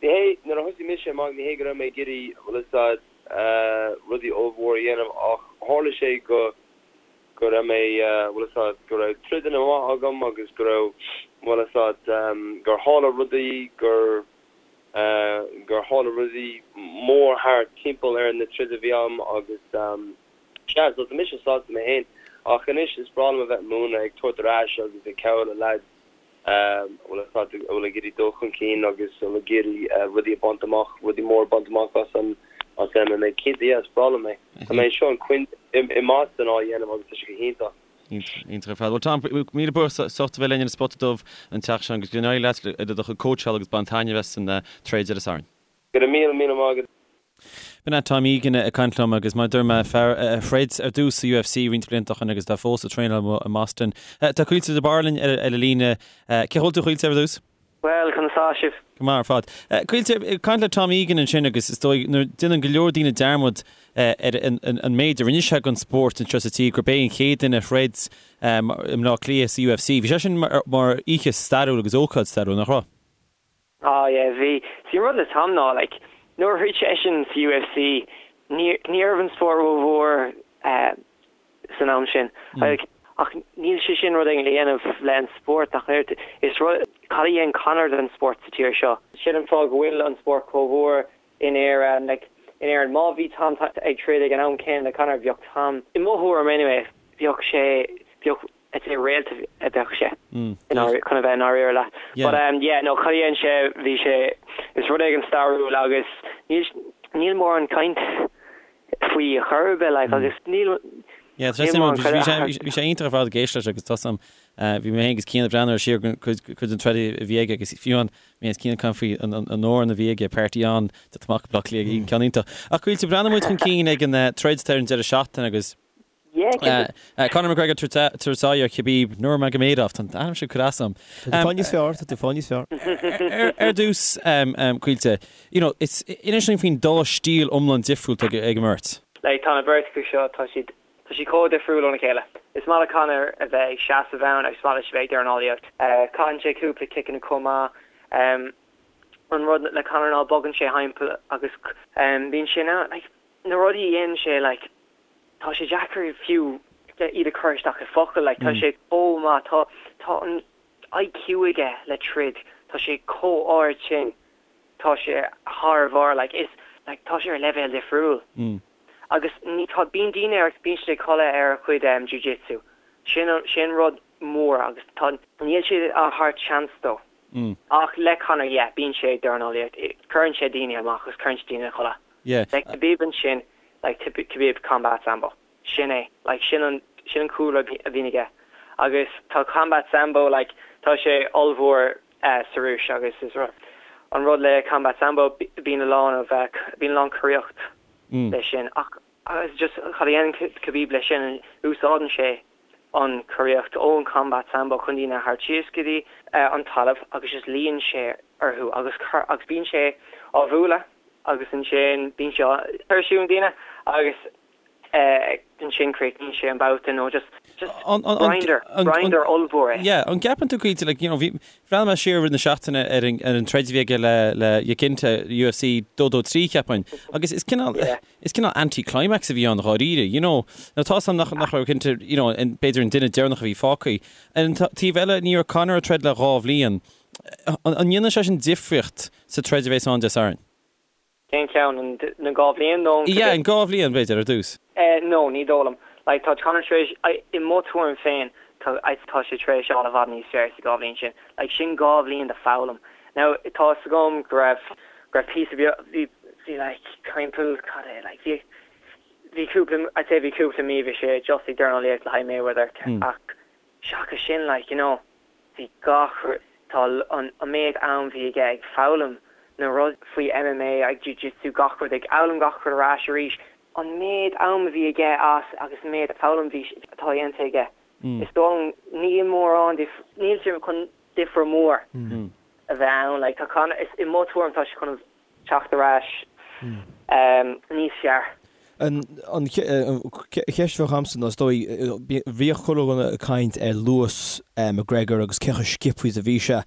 ní hé, nuair a thosaigh mise amach ní hé go raibh mé ag iarraidh, bhfuil fhios a'd, rudaí ollmhór a dhéanamh ach tharla sé go go raibh mé, bhfuil fhios a'd, go raibh troideanna maith agam agus go raibh, bhfuil fhios a'd, gur tharla rudaí, gur, gur tharla rudaí mór thart timpeall ar na troid a bhí a'm agus sea, so tá mise sásta mé fhéin ach anois is breá liom a bheith ag múineadh, ag tabhairt ar ais agus ag cabhrú le leaids. a bhfuil a bhfuil ag iarraidh dul chun cinn agus a bhfuil ag iarraidh rudaí a bhaint amach, rudaí móra a bhaint amach as an as MMA. Cinnte, yeah, is breá liom é. Tá mé anseo in Quin i mBoston á dhéanamh agus tá sé go hiontach. Iontach ar fad. Bhuel Tom, míle buíochas as ucht a bheith linn ar an Spota Dubh an tseachtain seo agus go n-éirí leat i do chuid cóitseála agus bain taitneamh as an troid ar an Satharn. Go raibh míle míle maith agat. B'in é Tom Egan ag caint liom agus mar a dúirt mé, fear a throid ar dtús sa UFC roinnt blianta ó shin agus atá fós ag traenáil amuigh i mBoston. Tá Caoilte de Barra linn ar an líne. Cén chaoi a bhfuil tú a Chaoilte ar dtús? Bhuel, conas tá sibh? Go maith ar fad. Caoilte, ag caint le Tom Egan ansin agus is dóigh nuair déanann go leor daoine dearmad ar an méid a rinne sé don spórt anseo sa tír gurb é an chéad duine a throid i mBleá Cliath sa UFC. Bhí sé sin mar oíche stairiúil agus ócáid stairiúil, nach raibh? Ah yeah, bhí. See an rud le Tom ná like nuair a throid seisean sa UFC ní ní raibh an spórt rómhór eh san am sin. Like ach níl sé sin rud éigin le dhéanamh le an spórt ach oiread. Is rud, cad a dhein Conor don spórt sa tír seo? Sin an fáth go bhfuil an spórt chomh mhór in Éirinn. Like in Éirinn má bhí Tom ag troid ag an am céanna le Conor bheadh Tom, i mo thuairim anyway, bheadh sé, bheadh I'd say réalt a bheadh sé chun a bheith i ndáiríre leat. But um yeah no cad a dhein sé bhí sé is rud éigin stairiúil agus níl níl mórán caint faoi ar chor ar bith like agus níl Yeah, tá sé mórán bhí sé bhí sé iontach ar fad ag éisteacht leis agus tá sam bhí mé féin agus Cian ag breathnú ar siar cuid cuid den troid a bhí aige agus fiú an mé agus Cian ag caint faoi an an amhrán a bhí aige Party On de amach Bleá Cliath ceann iontach. Ach Caoilte breathnóidh muid chun cinn ag an troid atá ar an deireadh seachtaine agus Conor McGregor ag tabhairt aghaidh ar Khabib Nurmagomedov, tá an t-ainm sin curtha asam. Tá tú fáil níos fearr, tá tú fáil níos fearr. Ar dtús, Caoilte, you know, is inis dúinn faoin dá stíl iomlán difriúil atá ag an mbeirt. Like, tá na beirt acu seo, tá siad, tá siad chomh difriúil óna chéile. Is maith le Conor a bheith ag seasamh ann agus is maith leis a bheith ag dornálaíocht. Caitheann sé cúpla ciceanna chomh maith. An rud le Conor ná bogann sé thimpeall agus bíonn sé in ann, like, na rudaí a dhéanann sé, like, tá sé deacair fiú iad a chur isteach i focail, like, tá sé chomh maith, tá, tá an IQ aige le troid, tá sé chomh ard sin, tá sé thar barr, like, is, like, tá sé ar leibhéal difriúil. Agus ní, tá, bíonn daoine ar, bíonn siad ag codladh ar a chuid um, jiu-jitsu. Sin, sin rud mór agus tá, níl siad á thabhairt seans dó. Ach le Conor, yeah, bíonn sé ag dornálaíocht, cuireann sé daoine amach agus cuireann sé daoine a chodladh. Yeah. Le Khabib ansin, like Khabib combat sambo. Sin é. Like sin an, sin an cúlra a bhíonn aige. Agus tá combat sambo like, tá sé ollmhór eh sa Rúis agus is rud, an rud le combat sambo bíonn a lán of eh, bíonn a lán coraíocht le sin. Ach agus just cad a dhéanann Khabib le sin, úsáideann sé an choraíocht ón combat sambo chun daoine a thabhairt síos go dtí an talamh agus just luíonn sé orthu agus agus bíonn sé á bhualadh agus ansin bíonn sé á tuirsiú na daoine agus ansin críochnaíonn sé an babhta nó just just grinder grinder ollmhór é. Yeah, an gceapann tú Caoilte like you know bhí bhreathnaigh mé siar i rith na seachtaine ar an ar an troid a bhí aige le le Iaquinta UFC 223 cheapfainn agus is cineál yeah. Is cineál anti-climax a bhí ann dháiríre, you know. Now tá's a'm nach nach raibh cinnte, you know, an b'fhéidir an duine deireanach a bhí fágtha. Ar an taobh eile, ní raibh Conor ag troid le dhá bhliain. An an ndéanann sé sin difríocht sa troid a bheas ann Dé Sathairn? Cén ceann? An na dhá bhliain nó an Yeah, an dhá bhliain, b'fhéidir, ar dtús. Eh, no, ní dóigh liom. Like, tá Conor tar éis, i mo tuairim féin, Tá tá sé tar éis fháil i bhfad níos fearr sa dhá bhliain sin. Like sin dhá bhliain de foghlaim. Now tá 'fhios agam go raibh go raibh píosa beag bhí bhí like timpeall cad é like bhí bhí cúpla I'd say bhí cúpla mí bhí sé just ag dornálaíocht le haghaidh Mayweather ach seachas sin like you know bhí gach tá an an méid am bhí aige ag foghlaim na rudaí faoi MMA ag jiu-jitsu gach rud ag foghlaim gach rud ar ais arís An méid am a bhí aige as agus an méid foghlaim bhí atá dhéanta aige, is dóigh liom níl mórán níl sé chun difear mór a bheith ann. Like tá Conor, is i mo tuairim tá sé chun teacht ar ais níos fearr. An cheist a bheadh agamsa ná is dóigh, bhíodh chuile dhuine ag caint ar luas McGregor agus cé chomh sciobtha is a bhí sé.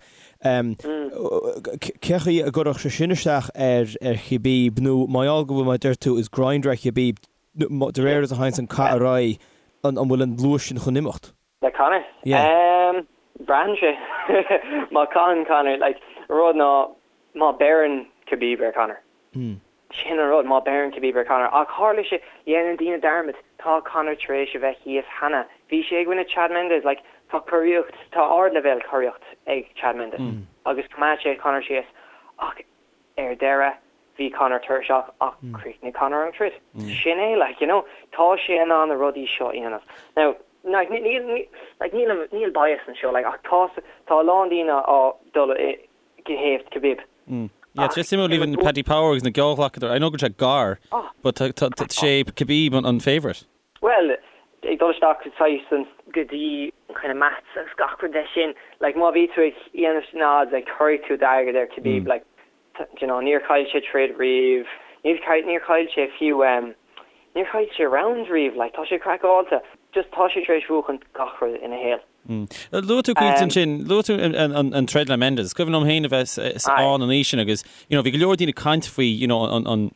Cé chaoi a gcuirfeadh sé sin isteach ar Khabib nó mar gheall go bhfuil, mar a deir tú, is grinder é Khabib, de réir is a théanns an cath ar aghaidh, an bhfuil an luas sin chun imeacht? Le Conor? Yeah. Braitheann sé. Má caitheann Conor, like, rud ná má beireann Khabib ar Conor. Sin an rud, má beireann Khabib ar Conor. Ach tharla sé, dhéanann daoine dearmad, tá Conor tar éis a bheith thíos cheana. Bhí sé i gcoinne Chad Mendes, like, tá curaíocht, tá ardleibhéal curaíocht ag Chad Mendes agus choimeád sé Conor síos. Ach ar deireadh, bhí Conor tuirseach ach chríochnaigh Conor an troid. Sin é, like, you know, tá sé in ann na rudaí seo a dhéanamh. Now, like, níl, like, níl, níl bias anseo, like, ach tá, tá a lán daoine á dul i, go thaobh Khabib. Yeah, tá sé suimiúil even Paddy Power agus na geallghlacadóirí, I know go bhfuil sé gar, but tá sé Khabib an favourite. Bhuel, ag dul isteach saghas an go dtí kind of maths agus gach rud leis sin, like má bhí tú ag dhéanamh na odds, like cuirfidh tú d'airgead ar Khabib, like do you know, níor chaill sé troid riamh, níl níor chaill sé fiú um, níor chaill sé round riamh, like tá sé craiceáilte, just tá sé tar éis buachan gach rud ina shaol. Luaigh tú Caoilte ansin, luaigh tú an troid le Mendes. Is cuimhin liom féin a bheith ann an oíche sin agus you know bhí go leor daoine ag caint faoi you know an an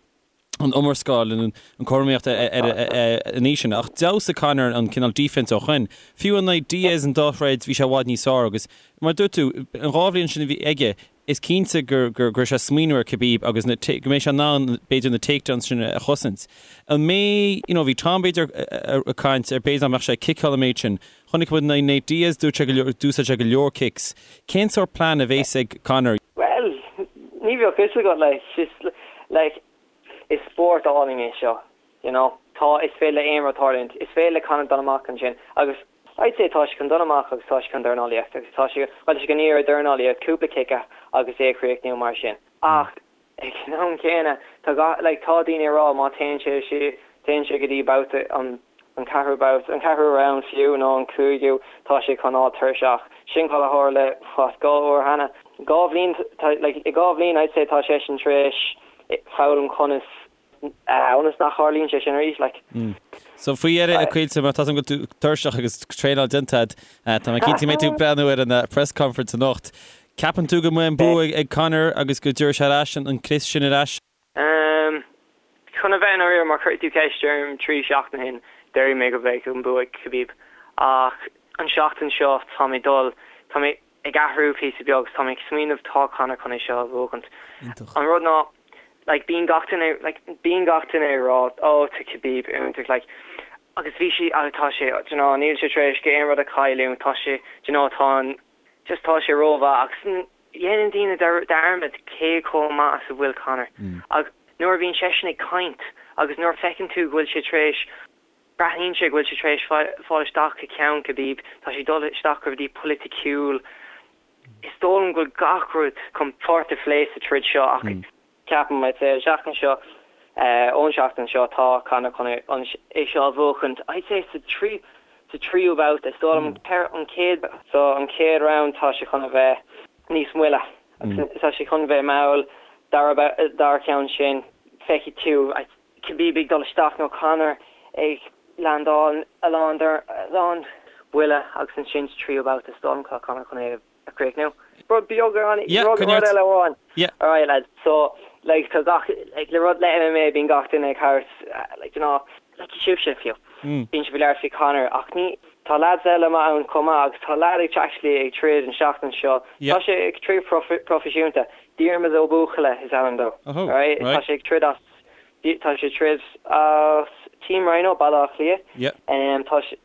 an iomrascáil an an cothromaíocht ar an oíche sin. Ach d'fheabhsaigh Conor an cineál defense ó shoin. Fiú in aghaidh Diaz an dá throid bhí sé i bhfad níos fearr agus mar a dúirt tú an dhá bhliain sin a bhí aige Is cinnte go raibh sé ag smaoineamh ar Khabib agus na, go mbeidh sé in ann b'fhéidir na takedowns sin a chosaint. An mbeidh, you know, bhí Tom b'fhéidir ag caint ar b'fhéidir nach mbeadh sé ag ciceáil an méid sin. Chonaic muid in aghaidh Nate Diaz, dúirt sé go leor, d'úsáid sé go leor kicks. Cén sórt plean a bhéas ag Conor? Bhuel, ní bheadh fhios agat, like, just, like, is spórt álainn é seo, you know. Tá, is féidir le aon rud tarlúint. Is féidir le Conor dul amach ansin agus I'd say tá sé chun dul amach agus tá sé chun dornálaíocht agus tá sé, bhuel tá sé chun iarraidh dornálaíocht, cúpla cic agus é a chríochnú mar sin. Ach ag an am céanna tá gach, like tá daoine ag rá má téann sé sé, téann sé go dtí babhta an, an ceathrú babhta, an ceathrú round fiú nó an cúigiú, tá sé chun fháil tuirseach. Sin cad a tharla what dhá uair cheana. Dhá bhliain, tá, like i dhá bhliain I'd say tá seisean tar éis foghlaim conas ionas nach tharlaíonn sé sin arís, like. So faoi dheireadh, a Chaoilte, mar tá go bhfuil tú tuirseach agus traenáil déanta agat, tá mé cinnte go mbeidh tú ag breathnú ar an press conference anocht. Ceapann tú go mbeidh an bua ag Conor agus go dtabharfaidh sé ar ais an crios sin ar ais? Chun a bheith i ndáiríre, má chuir tú ceist orm trí seachtain ó shin, déarfaidh mé go mbeidh an bua ag Khabib. Ach an seachtain seo, tá mé dul, tá mé, ag athrú píosa beag 's tá mé ag smaoineamh tá Conor chun é seo a bhuachaint. An rud ná like bíonn gach duine like bíonn gach duine ag rá oh tá Khabib iontach like agus bhí sé agus tá sé do you know níl sé tar éis aon rud a chailliúint tá sé do you know tá an just tá sé rómhaith agus dhéanann daoine dearmad cé chomh maith is a bhfuil Conor agus nuair a bhíonn seisean ag caint agus nuair a feiceann tú go bhfuil sé tar éis Breathnaíonn sé go bhfuil sé tar éis fáil isteach i gceann Khabib, tá sé ag dul isteach i rudaí polaiticiúil. Is dóigh liom go bhfuil gach rud chun páirt a phlé sa troid seo ach ceapaim, I'd say, an seachtain seo, ón seachtain seo, tá Conor chun é seo a bhuachaint, I'd say sa trí, sa tríú babhta. Is dóigh liom an chéad, so an chéad round tá sé chun a bheith níos moille agus tá sé chun bheith mall, dara, dara ceann sin feicfidh tú, Khabib ag dul isteach nó Conor ag landáil a lán a lán buille agus ansin sa tríú babhta is dóigh liom tá Conor chun é a chríochnú. Rud beag rud rud eile amháin. Alright lads, so like tá gach like le rud le MMA bíonn gach duine ag thabhairt like you know like sibhse fiú. Bíonn sibh ag labhairt faoi Conor ach ní tá lads eile maith ann chomh maith agus tá lad ag actually ag troid an seachtain seo. Tá sé ag troid proifisiúnta. Diarmuid Ó Buachalla is ainm dó. Alright? Tá sé ag troid as. Tá sé ag troid as Team Rhino, Baile Átha Cliath. Tá sé,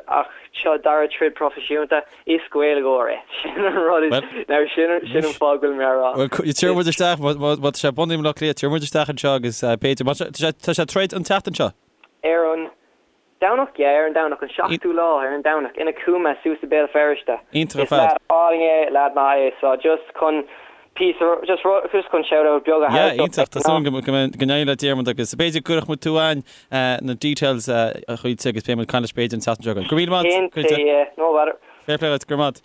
ach seo a dara troid proifisiúnta. Is Gaeilgeoir é. Sin an rud is, now sin, sin an fáth go bhfuil mé á rá. Bhuel, tabharfaidh muid isteach, má tá sé bunaithe i mBaile Átha Cliath, tabharfaidh muid isteach anseo agus b'fhéidir, má tá sé, tá sé ag troid an tseachtain seo? Ar an. Domhnach, yeah, ar an Domhnach, an seachtú lá, ar an Domhnach, in Cooma, suas i Béal Feirste. Iontach ar fad. Is leaid álainn é, leaid maith é, so just chun píosa, just rud, just chun shout out beag a Yeah, thabhairt dó. iontach, tá súil agam go mbeidh, go n-éireoidh le Diarmuid agus b'fhéidir go gcuirfidh muid tú againn na details a Chaoilte agus beidh muid ag caint leis b'fhéidir an tseachtain seo chugainn. Go raibh míle maith agat, Cinnte, Caoilte. yeah, no bother. Fair play duit, go raibh maith agat.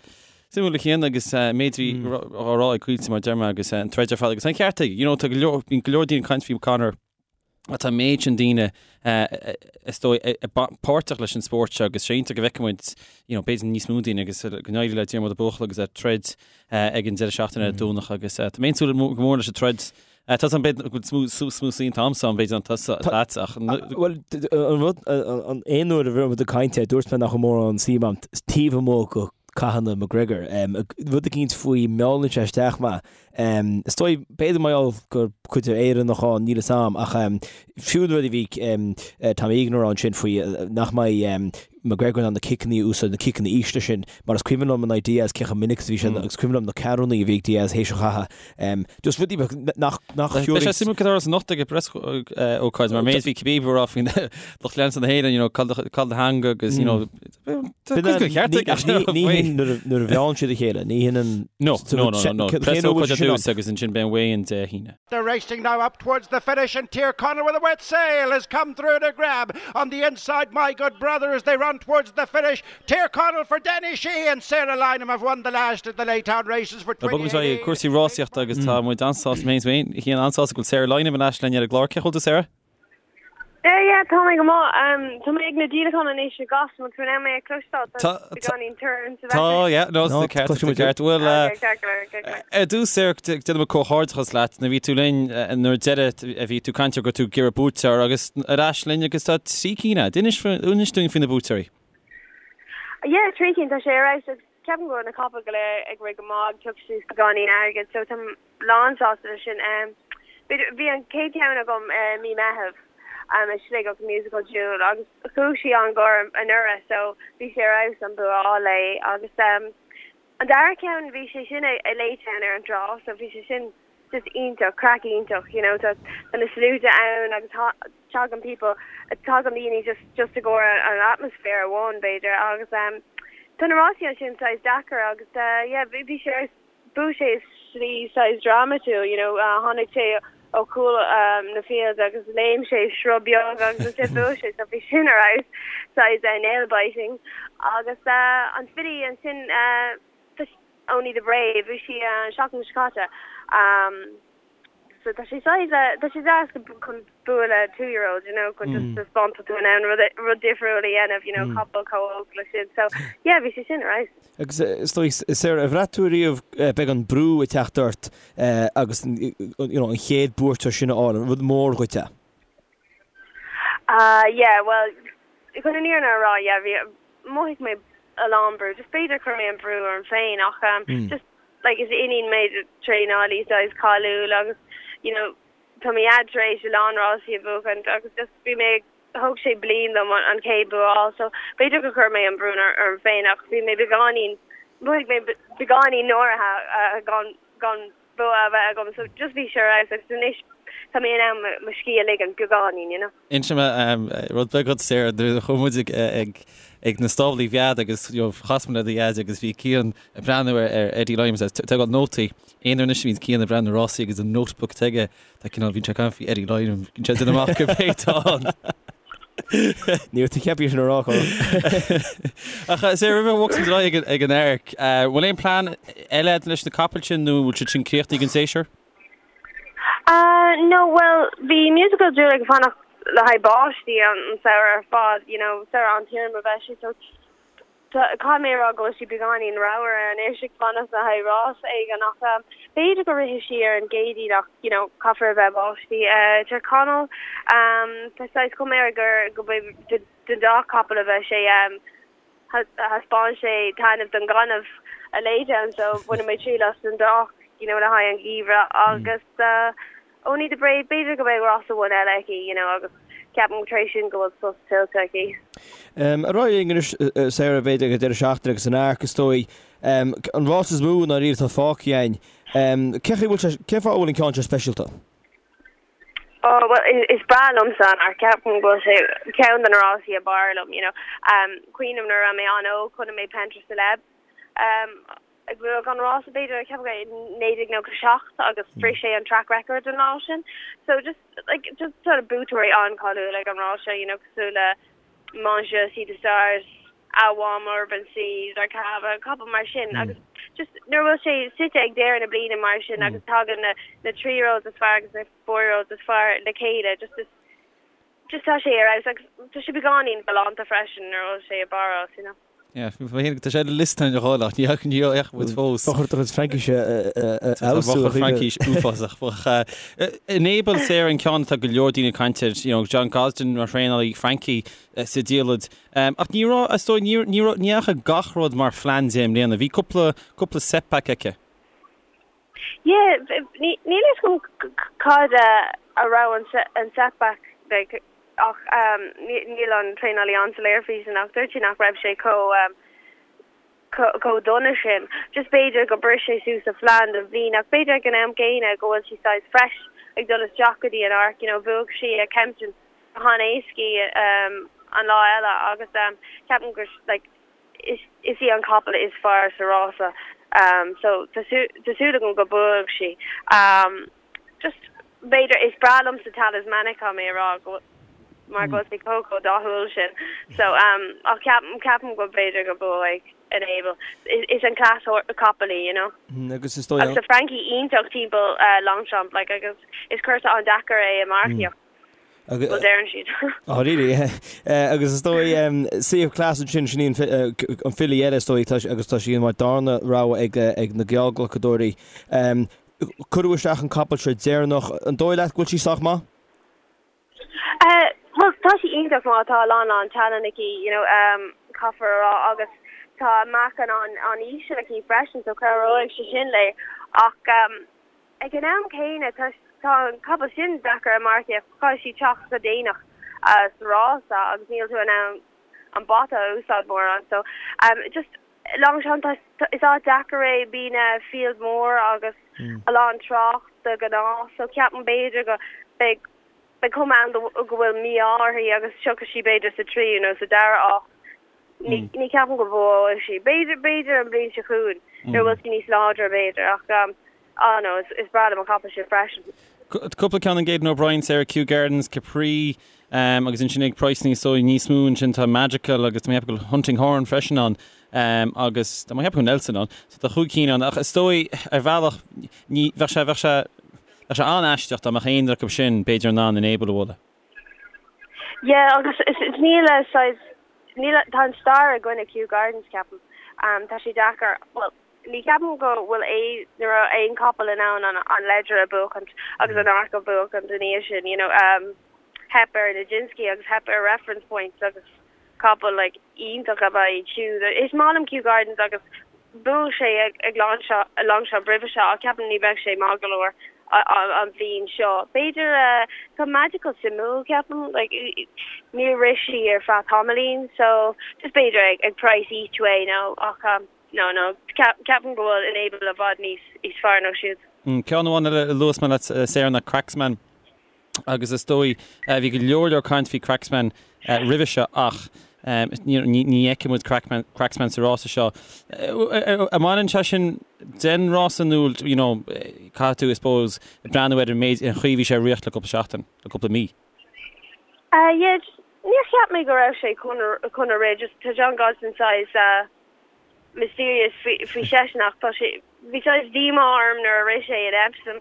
Suimiúil a Chian agus méid a bhí á rá ag Caoilte mar deir mé agus an troid ar fad agus an ceart aige, you know, tá go leor, bíonn go leor daoine ag caint faoi Conor, Tá an méid sin daoine, is dóigh, páirteach leis an spórt seo agus sé iontach go bhfeicfidh muid, you know, b'fhéidir níos mó daoine agus go n-éirí le Diarmuid an buachaill agus é ag troid ag an deireadh seachtaine ar an Domhnach agus tá mé ag súil go mór leis an troid. Tá an b'fhéidir go bhfuil smú saoin t-am seo b'fhéidir an tusa leat ach Bhuel, an rud, an aon uair a bhí muid ag caint air, dúirt mé nach raibh mórán suim agam taobh amuigh de cathanna McGregor. Rud eicínt faoi meallann sé isteach mé. Is dóigh, b'fhéidir mar gheall gur cuid de Éireannach ann, níl 'fhios a'm, ach fiú an rud a bhí Tom Egan a rá ansin faoi nach mbeidh McGregor in ann na ciceanna a úsáid, na ciceanna ísle sin, mar is cuimhin liom in aghaidh Diaz cé chomh minic is a bhí sé, agus cuimhin liom na ceathrúnaí a bhí ag Diaz théis an chatha. Just rudaí beaga nach, nach Beidh sé suimiúil cad a tharlós anocht ag an bpreas ócáid mar méid bhí Khabib ag rá faoin lucht leanta na hÉireann, you know, cá'il do theanga agus, you know, Ní hin nuair a mheánn siad a chéile, ní hin an... No, no, no, no. Preasócáid ar dtús agus ansin beidh an weigh-in Dé hAoine. They're racing now up towards the finish and Tyrconnell with a wet sail has come through to grab on the inside My Good Brother as they run towards the finish. Tyrconnell for Danny Sheehy and Sarah Lynam have won the last of the Laytown races for Bogfaidh muid ar aghaidh cúrsaí rásaíochta agus tá muid an-sásta, mé féin an-sásta go bhfuil Sarah Lynam ar ais linn ar an gclár. Cén chaoi a bhfuil tú Sarah? Yeah, yeah, tá mé go maith. Tá mé ag na díolacháin anois i gCasla, an bhfuil tú in ann mé a chloisteáil? Tá beagáinín torann sa Tá, yeah, no, tá ceart, tá ceart. Bhuel, ar dtús, Sarah, déanaim comhghairdeachas leat. Nuair a bhí tú linn, nuair deireadh a bhí tú ag caint ar go raibh tú ag iarraidh buaiteoir agus ar ais linn agus tá 3 cinn agat. Inis, inis dúinn faoi na buaiteoirí. Yeah, 3 cinn, tá sé ar fheabhas agus ceapaim go bhfuil na capaill go léir ag rith go maith, ag piocadh suas beagáinín airgid, so tá lán sásta leis sin. B'fhéidir, bhí an chéad cheann agam i mí Meitheamh i Sligeach, Musical Jewel, agus chuaigh sí an-ghar anuraidh so bhí sé ar fheabhas an bua a fháil léi. Agus an dara ceann, bhí sé sin i Laytown ar an trá so bhí sé sin just iontach, craic iontach, you know, tá na sluaite ann agus tagann people, tagann daoine just just i gcomhair an atmaisféar amháin b'fhéidir agus tá na rásaí ansin saghas deacair agus yeah bhí sé ar fheabhas. Bhuaigh sé i slí saghas drámatúil, you know, tháinig sé ó chúl na field agus léim sé sruth beag agus ansin bhuaigh sé, so bhí sin ar fheabhas, saghas nail biting. Agus an filly ansin, Only the Brave, bhuaigh sí an seachtain seo caite. So tá sé saghas, tá sé deas chun bua le two year old, you know, chun just taispeáint tá tú in ann rud, rud difriúil a dhéanamh, you know, capall chomh óg le sin. So yeah, bhí sé sin ar fheabhas. Agus is dóigh, Sarah, ar bhraith tú riamh beagán brú ag teacht ort agus you know, an chéad buaiteoir sin a fháil, an rud mór dhuit é? Uh yeah, well, chun an fhírinne a rá, yeah, bhí, mhothaigh mé a lán brú, just b'fhéidir chuir mé an brú orm féin ach um, just like is iníon mé de traenálaí saghas cáiliúil agus you know tá mo dhaid tar éis a lán rásaí a bhuachaint agus just bhí mé thóg sé bliain dom an chéad bua a fháil so b'fhéidir gur chuir mé an brú orm féin ach bhí mé beagáinín mhothaigh mé beagáinín náirithe gan gan bua a bheith agam so just bhí sé ar fheabhas agus anois tá mé in ann mo scíth a ligean beagáinín you know. Inseoidh mé rud beag dhuit Sarah, nuair a chuaigh muid ag ag na stáblaí Mheád agus you know chas muid le do dhaid agus bhí Cian ag breathnú ar ar Eddie Lynam agus ag tógáil nótaí. Aon uair anois a bhíonns Cian ag breathnú ar rásaí agus an notebook aige tá cineál bíonn sé ag caint faoi Eddie Lynam, bíonn sé ag déanamh amach cibé atá ann. Ní raibh tú ceaptha sin a rá, Colm. Ach Sarah, roimh a bhogfas muid ar aghaidh ag ag an Arc, bhfuil aon plean eile agat leis na capaill sin nó bhfuil siad sin críochnaithe don séasúr? No, bhuel, bhí Musical Jewel ag fanacht le haghaidh báistí an samhradh ar fad, you know, samhradh an-tirim a bheidh sé, so caithfidh mé a rá go bhfuil sí beagáinín ramhar anois ag fanacht le haghaidh rás éigin ach b'fhéidir go rithfidh sí ar an gCéadaoin ach, you know, caithfear a bheith báistí. Tyrconnell, tá saghas cuma air gur go mbeidh den dá capall a bheidh sé, thaispeáin sé taitneamh don gaineamh i Laytown so bainfidh mé triail as an dá, you know, le haghaidh an gheimhreadh agus. Only the Brave, b'fhéidir go mbeidh rás amháin eile aici, you know, agus ceapaim tar éis sin go bhfuil sos tuillte aici. Ar aghaidh linn anois, Sarah, b'fhéidir ag an deireadh seachtaine agus an Arc, is dóigh. An rás is mó i ndáiríre atá fágtha againn. Cén chaoi a bhfuil sé, cén fáth a bhfuil an ceann seo speisialta? Oh, well, is breá liomsa an Arc, ceapaim go bhfuil sé ceann de na rásaí ab fhearr liom, you know. Cuimhním nuair a raibh mé an-óg, chonaic mé Pentre Celeb. Ag buachan an rása b'fhéidir, ceapaim go 1997 agus bhris sé an track record an lá sin. So just like just sort of buaiteoirí an-cháiliúil ag an rás seo, you know, cosúil le Montjeu, Sea The Stars, Awam, Urban Sea, Zarkava, capaill mar sin agus just nuair a bhfuil sé suite ag deireadh na bliana mar sin agus tagann na na three-year-olds is fearr agus na four-year-olds is fearr le chéile, just is just tá sé ar fheabhas agus tá sé beagáinín galánta freisin nuair a bhfuil sé i bPáras, you know. Yeah, tá sé ar an liosta a dhul ach ní fhaca muid fós. Ba chóir do chuid Fraincise a fheabhsú. Tá mo Fraincis uafásach. Enable Sarah an ceann atá go leor daoine ag caint air, you know, John Gosden mar thraenálaí Frankie sa diallait. Ach ní raibh, is dóigh, ní raibh, ní dheachaigh gach rud mar phlean di i mbliana. Bhí cúpla, cúpla setback aici. Yeah, níl a fhios agam cad a raibh an setback like ach níl an traenálaí an-soiléir faoi sin ach dúirt sé nach raibh sé chomh chomh dona sin. Just b'fhéidir gur bhris sé suas a phlean don bhliain ach b'fhéidir ag an am gcéanna go bhfuil sí saghas fresh ag dul isteach go dtí an Arc, you know, bhuaigh sí ag Kempton go han-éascaí an lá eile agus ceapaim gur like is í an capall is fearr sa rása so tá súil agam go buafaidh sí. Just b'fhéidir is breá liomsa Talismanic tá mé a rá go mar go bhfuil sé chomh chomh dathúil sin so ach ceapaim ceapaim go b'fhéidir go buafaidh Enable. Is an class capall í you know. Agus is dóigh Agus tá Frankie iontach timpeall Longchamp like agus is cúrsa an-deacair é i marcaíocht. Bhuel, deireann siad. Oh, really? Agus is dóigh, Sea of Class ansin, sin í an filí eile is dóigh, agus tá sí mar darna rogha ag na geallghlacadóirí. Cuireadh isteach an capall seo deireanach. An dóigh leat go bhfuil sí sách maith? Bhuel, tá sí iontach maith, tá a lán lán tallann aici, you know, caithfear a rá, agus tá meáchan an-íseal aici freisin, so cabhróidh sé sin léi. Ach Ag an am céanna, tá an capall sin deacair a marcaíocht, caithfidh sí teacht go déanach sa rása agus níl tú in ann an bata a úsáid mórán. So, just Longchamp, is áit deacair é, bíonn field mór agus a lán trácht de ghnáth, so ceapaim b'fhéidir go beidh beidh cuma ann go bhfuil mí-ádh uirthi agus tiocfaidh sí b'fhéidir sa tríú nó sa dara háit. Ní ní ceapaim go mbuafaidh sí. B'fhéidir b'fhéidir an bhliain seo chugainn nuair a bhfuil sí níos láidre b'fhéidir ach ah no is is breá liom an capall sin freisin. Cúpla ceann ag Aidan O'Brien, Sarah Kew Gardens, Capri agus ansin ag praghas is dóigh níos mó ansin tá Magical agus tá mé ag ceapadh go bhfuil Hunting Horn freisin ann agus tá mé ag ceapadh go bhfuil Nelson ann. So tá chúig cinn ann ach is dóigh ar bhealach ní bheadh sé bheadh sé bheadh sé an-aisteach dá mbeadh aon acu sin b'fhéidir in ann Enable a bhualadh. Yeah agus is níl a saghas níl tá an stair i gcoinne Kew Gardens ceapaim. Tá sé deacair bhuel ní ceapaim go bhfuil aon ní raibh aon capall in ann an an Leger a buachaint agus an Arc a bhuachaint ina dhiaidh sin you know theip ar Nijinsky agus theip ar Reference Point agus capall like iontach ab ea iad siúd. Is maith liom Kew Gardens agus bhuaigh sé ag Longchamp roimhe seo ach ceapaim ní bheidh sé maith go leor an bhliain seo. B'fhéidir tá Magical suimiúil ceapaim like níor rith sí ar feadh tamaillín so just b'fhéidir ag ag price each way nó ach no no ceapaim go bhfuil Enable i bhfad níos níos fearr ná siúd. Ceann amháin eile a luafas mé leat Sarah ná Cracksman. agus is dóigh, bhí go leor leor caint faoi Cracksman roimhe seo ach ní fheicfidh muid Cracksman sa rása seo. An mbaineann sé sin den rása nó you know caithfidh tú I suppose breathnú ar an méid an chaoi a bhí sé ag rith le cúpla seachtain, le cúpla mí? Yeah, níor cheap mé go raibh sé chun chun a rith, just tá John Gosden saghas mysterious faoi seisean ach tá sé bhí saghas díomá orm nuair a rith sé in Epsom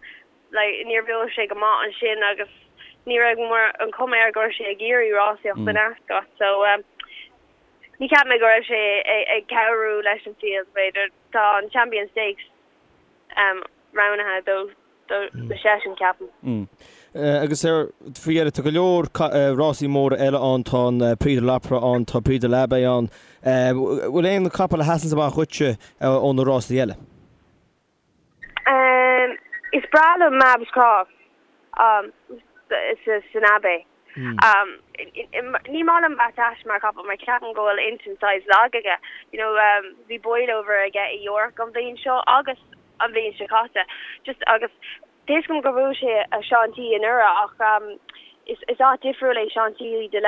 like níor bhuaigh sé go maith ansin agus ní raibh mar an chuma air go raibh sé ag iarraidh rásaíocht in Ascot so um, ní cheap mé go raibh sé ag cabhrú leis an field b'fhéidir tá an Champion Stakes um, roghnaithe dó do do seisean ceapaim. Mm. Agus ar faoi dheireadh tá go leor rásaí móra eile ann, tá an Prix de l'Opera ann, tá Prix de l'Abbaye ann. Bhfuil aon capall a sheasann amach dhuitse ó na rásaí eile? Is breá liom Mabs Cross. San Abbey. Ní maith liom Battaash mar chapall mar ceapaim go bhfuil intinn saghas lag aige. You know, bhí boilover aige i York an bhliain seo agus an bhliain seo caite. Just agus tá a fhios agam gur bhuaigh sé i Chantilly anuraidh ach is is áit difriúil é Chantilly de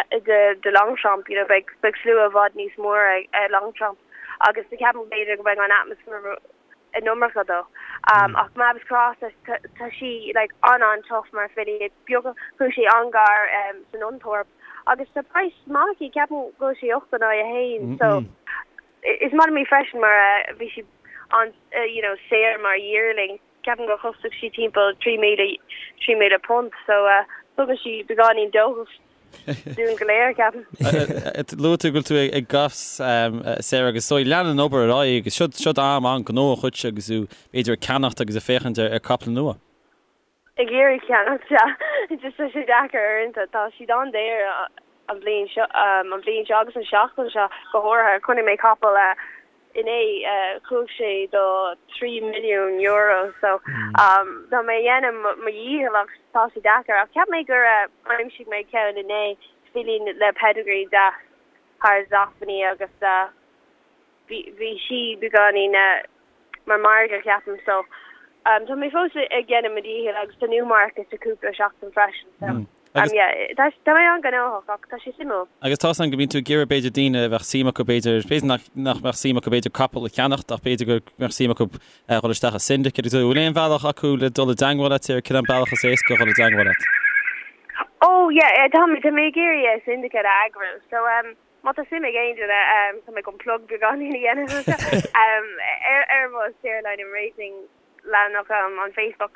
de Longchamp, you know, beidh beidh slua i bhfad níos mór ag Longchamp agus ceapaim b'fhéidir go mbeidh an atmaisféar an iomarca dó. Ach Mabs Cross tá sí like an-an-tough mar filly beag chuaigh sí an-gar san Nunthorpe agus tá price maith aici ceapaim go bhfuil sí 8 in aghaidh 1 so is maith liom í freisin mar bhí sí an you know saor mar yearling ceapaim gur chostaigh sí timpeall 3,000 £3,000 so tugann sí beagáinín dóchas dúinn go léir, ceapaim. Luaigh tú go bhfuil tú ag Goffs, Sarah, agus so leanann an obair ar aghaidh agus siod siod am an-ghnóthach dhuit agus tú b'fhéidir ag ceannacht agus ag féachaint ar caiple nua. Ag iarraidh ceannacht, sea. Just tá sé deacair uaireanta. Tá siad an-daor an bhliain seo, an bhliain seo agus an seachtain seo go háirithe. Chonaic mé capall inné, chuaigh sé do €3 milliún so tá mé ag déanamh mo dhícheall ach tá sé deacair. Ach cheap mé gur aimsigh mé ceann inné, filín le pedigree deas thar Zoffany agus bhí sí beagáinín mar margadh ceapaim so tá mé fós ag déanamh mo dhícheall agus tá Newmarket i cúpla seachtain freisin so yeah tá tá mé an-ghnóthach ach tá sé suimiúil. Agus tá's agam go mbíonn tú ag iarraidh b'fhéidir daoine a bheadh suim acu b'fhéidir, b'fhéidir nach nach mbeadh suim acu b'fhéidir capall a cheannacht ach b'fhéidir go mbeadh suim acu dhul isteach i syndicate agus bhfuil aon bhealach acu le dul i dteangmháil leat ar cén bealach is éasca dhul i dteangmháil leat? Oh yeah tá mé tá mé ag iarraidh syndicate a eagrú so Má tá suim ag aon duine, tá mé chun plug beagáinín a dhéanamh anseo, ar mo Sarah Lynam Racing leathanach on Facebook,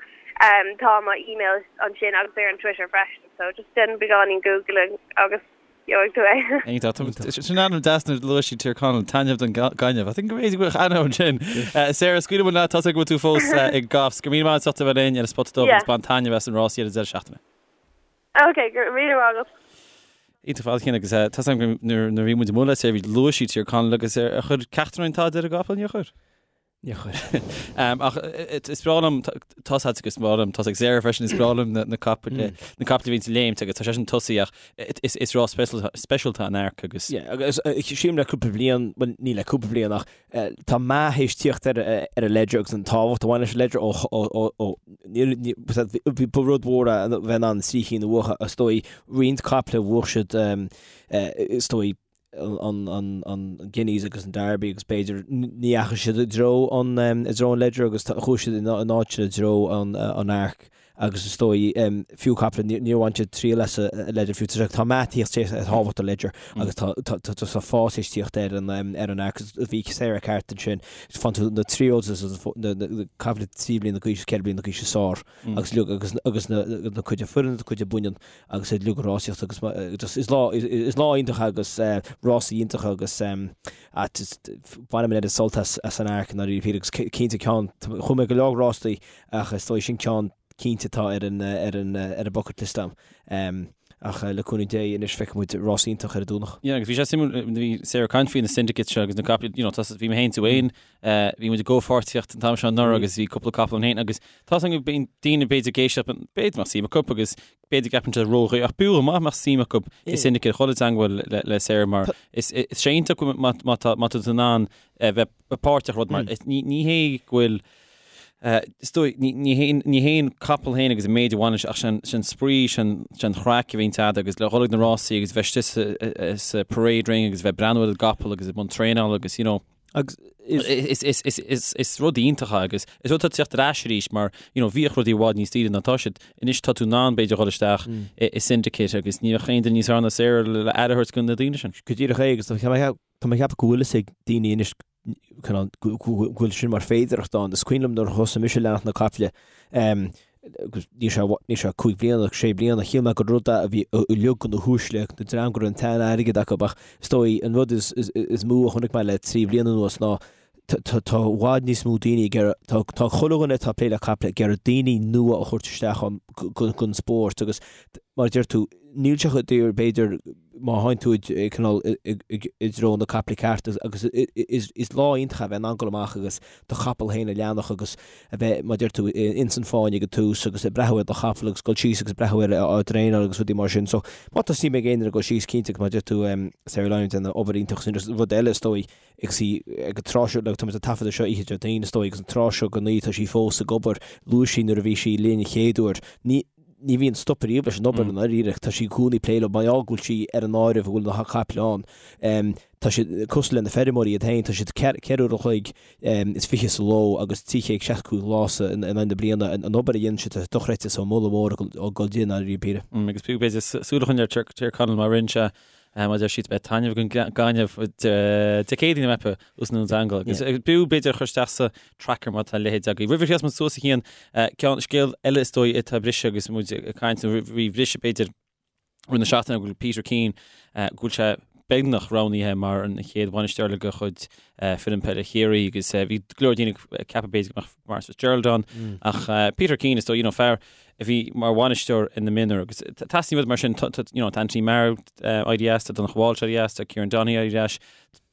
tá mo email ansin agus ar an Twitter freisin, so just déan beagáinín googling agus gheobhaidh tú é. Iontach. Sin ainm deas nuair a luaigh sí Tír Chonaill, taitneamh don gaineamh. I think go bhféadfaidh go mbeadh ainm ansin. Sarah, scaoilfidh muid leat, tá's agam go bhfuil tú fós ag Goffs. Go raibh míle maith agat as ucht a bheith linn ar an Spota Dubh agus bain taitneamh as an rásaí ar an deireadh seachtaine. Ok, go raibh míle maith agat. Iontach ar fad Cian agus tá's agam go nuair a bhí muid amuigh le Sarah bhí luaigh sí Tír Chonaill agus ar chuir ceachtar againn tada ar an gcapall níor chuir? Níor chuir. Ach is breá liom tá's agat agus is breá liom tá's ag Sarah freisin is breá liom na capaill na capaill a bhíonn ag léimt agus tá sé sin tosaí ach is rás speisialta an Arc agus. Yeah, agus sílim le cúpla bliain, bhuel ní le cúpla bliain ach Tá meath théis tíocht ar an Leger agus an tábhacht a bhain leis an Leger ó bhí ba rud mhór é a bheith in ann trí chinn a bhuachan is dóigh roinnt caiple bhuaigh siad is dóigh an Guineas agus an Derby agus b'fhéidir ní dheachaigh siad i dtreo an i dtreo an Leger agus chuaigh siad in áit sin i dtreo an Arc. agus is dóigh, fiú caiple, níor bhain siad triail as an Leger fiú. Tá meath ag tíocht ar thábhacht an Leger agus tá tá fás théis tíocht ar an ar an Arc. Bhí Sarah ceart ansin, faigheann tú na three-year-olds na caiple 3 bliana d'aois, 4 bliana d'aois is fearr agus agus agus na na cuid fireann na cuid baineann agus iad uilig ag rásaíocht agus just is lá is lá iontach agus rásaí iontach agus bainim an oiread sult as as an Arc i ndáiríre agus cinnte ceann chuaigh mé go leor rástaí Ach is dóigh sin ceann cinnte atá ar an ar an ar an bucket list a'm. Ach le cúnamh Dé anois feicfidh muid rás iontach ar an Domhnach. Yeah, agus bhí sé suimiúil, bhí Sarah ag caint faoi na syndicates seo agus na caiple, you know, tá, bhí mé féin tú féin, bhí muid i gcomhpháirtíocht an t-am seo anuraidh agus bhí cúpla capall ann féin agus tá a fhios agam go mbíonn daoine b'fhéidir ag éisteacht, b'fhéidir go mbeadh suim acu agus b'fhéidir go gceapann siad ródhaor ach b'fhiú go maith mbeadh suim acu i syndicate dhul i dteangmháil le, le Sarah mar is, is sé iontach má, má tá, má tá tú in ann bheith páirteach rud mar, ní, ní hé go bhfuil Is dóigh, ní hé an capall féin agus an méid a bhaineann sé ach sin spraoi, sin an chraic a bhíonn agat agus le dhul ag na rásaí agus bheith istigh sa parade ring agus bheith ag breathnú ar an gcapall agus i mbun traenála agus you know, Agus is rud iontach é agus is rud atá ag teacht ar ais arís mar you know, bhíodh rudaí i bhfad níos daoire ná tá siad. Anois tá tú in ann b'fhéidir dhul isteach i syndicate agus ní bheadh aon duine níos fearr ná Sarah le aire a thabhairt do na daoine sin. Go díreach é agus tá mé ag ceapadh go bhfuil fhios ag daoine anois go bhfuil sin mar féidearthacht ann. Is cuimhin liom nuair a thosaigh mise ag leanacht na caiple, agus níl sé, níl sé cúig bliana, sé bliana, shíl mé gur rud é a bhí uilig do na huaisle, na dream go raibh an t-airgead acu, ach is dóigh an rud is, is, is mó a chonaic mé le trí bliana anuas ná tá, tá, tá i bhfad níos mó daoine ag iarraidh, tá, tá chuile dhuine atá ag plé le caiple ag iarraidh daoine nua a thabhairt isteach ann don spórt agus. Mar a deir tú, níl sé chomh daor, b'fhéidir, má théann tú i cineál i dtreo na caiple ceart agus is lá iontach é a bheith in ann dul amach agus do chapall féin a cheannach agus a bheith, mar a deir tú, ins an fáinne ag an tús agus ag breathnú ar do chapall agus dul síos agus breathnú air á dtraenáil agus rudaí mar sin. So má tá suim ag aon duine dul síos, cinnte, agus mar a deir tú, Sarah Lynam ag déanamh obair iontach sin rud eile is dóigh agus í ag an tráth seo, tá muid ag taifeadadh seo oíche Déardaoin is dóigh agus an tráth seo den oíche tá sí fós ag obair, luaigh sí nuair a bhí sí linn an chéad uair, ní, ní bhíonn stop ariamh leis an obair i ndáiríre. Tá sí i gcónaí ag plé leo, mar gheall go bhfuil sí ar an áireamh go bhfuil na caiple ann. Tá siad cosúil le na feirmeoirí iad féin, tá siad 4 uair an chloig is 20 sa ló agus 365 lá sa in aghaidh na bliana. An obair a dhéanann siad, tá sé dochreidte, so moladh mór ag dul di i ndáiríre píre. Agus b'fhéidir súil a choinneáil ar Tír Chonaill mar rinne sé Mar deir siad beidh taitneamh den gaineamh Dé Céadaoin a mbeifeá os na Dún Agus b'fhiú b'fhéidir a chur isteach sa tracker má tá a leithéid agaibh. Roimh a chríochnaíos muid suas a Chian, ceann scéal eile is dóigh atá ag briseadh agus muid ag caint nó roimh bhriseadh b'fhéidir roimh na seachtaine go bhfuil Peter Keane go bhfuil sé beagnach roghnaithe mar an chéad bhainisteoir eile de chuid foireann peile Chiarraí agus bhí go leor daoine ag ceapadh b'fhéidir go mbeadh Maurice Fitzgerald ann ach Peter Keane is dóigh you know fear a bhí mar bhainisteoir in na mionúir agus teastaíonn rud mar sin, you know, tá Anthony Maher éirithe as, tá Donncha Walsh éirithe as, tá Kieran Donaghy éirithe as.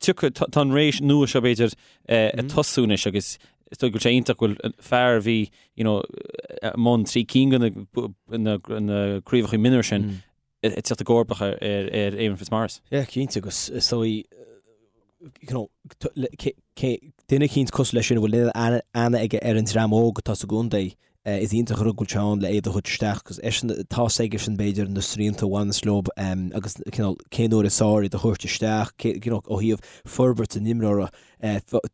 Tiocfaidh, tá an ré nua seo b'fhéidir ag tosú anois agus is dóigh go bhfuil sé iontach go bhfuil fear a bhí, you know, i mbun trí cinn de na craobhacha mionúir sin ag teacht i gcomharbacht ar ar Éamonn Fitzmaurice. Yeah, cinnte agus is dóigh you know, duine eicínt cosúil leis sin a bhfuil aithne aige ar an dream óg atá sa gcontae, is iontach an rud go bhfuil sé ann le iad a thabhairt isteach agus eisean, tá's aigesean b'fhéidir na srianta a bhaineas leo agus cineál cén uair is fearr iad a thabhairt isteach, you know, ó thaobh forbairt an imreora,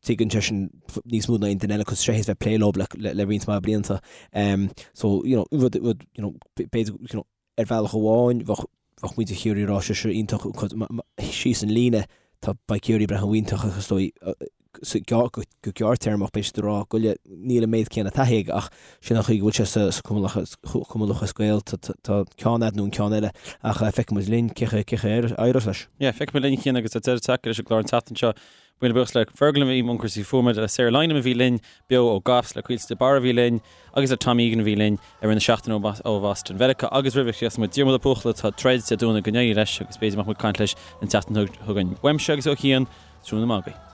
tuigeann seisean níos mó ná aon duine eile cos sé théis bheith ag plé leo le roinnt mhaith blianta. So, you know, rud, rud, you know, b'fhéidir, you know, Ar bhealach amháin, bheadh bheadh muintir Chiarraí ag rá sé seo iontach síos an líne, tá beidh Ciarraí ag breathnú iontach ach is dóigh sa go go gearrtéarmach beidh siad ag rá go le níl an méid céanna taithí aige ach sin an chaoi go bhfuil sé sa sa Cumann Cumann Lúthchleas Gael tá tá ceann agat nó an ceann eile ach feicfidh muid linn cé cé cé a éireos leis. Yeah, feicfidh muid linn a Chian agus tá deireadh tagtha leis an gclár an tseachtain seo. Míle buíochas le Fergal a bhí i mbun cúrsaí fuaime, le Sarah Lynam a bhí linn beo ó Goffs, le Caoilte de Barra a bhí linn agus le Tom Egan a bhí linn i rith na seachtaine ó Bhoston Mheiriceá agus roimh a chríochnós muid Diarmuid Ó Buachalla atá ag troid Dé Domhnaigh go n-éirí leis agus b'fhéidir go mbeadh muid ag caint leis an tseachtain chugainn. Uaimse agus ó Chian, tráthnóna maith agaibh.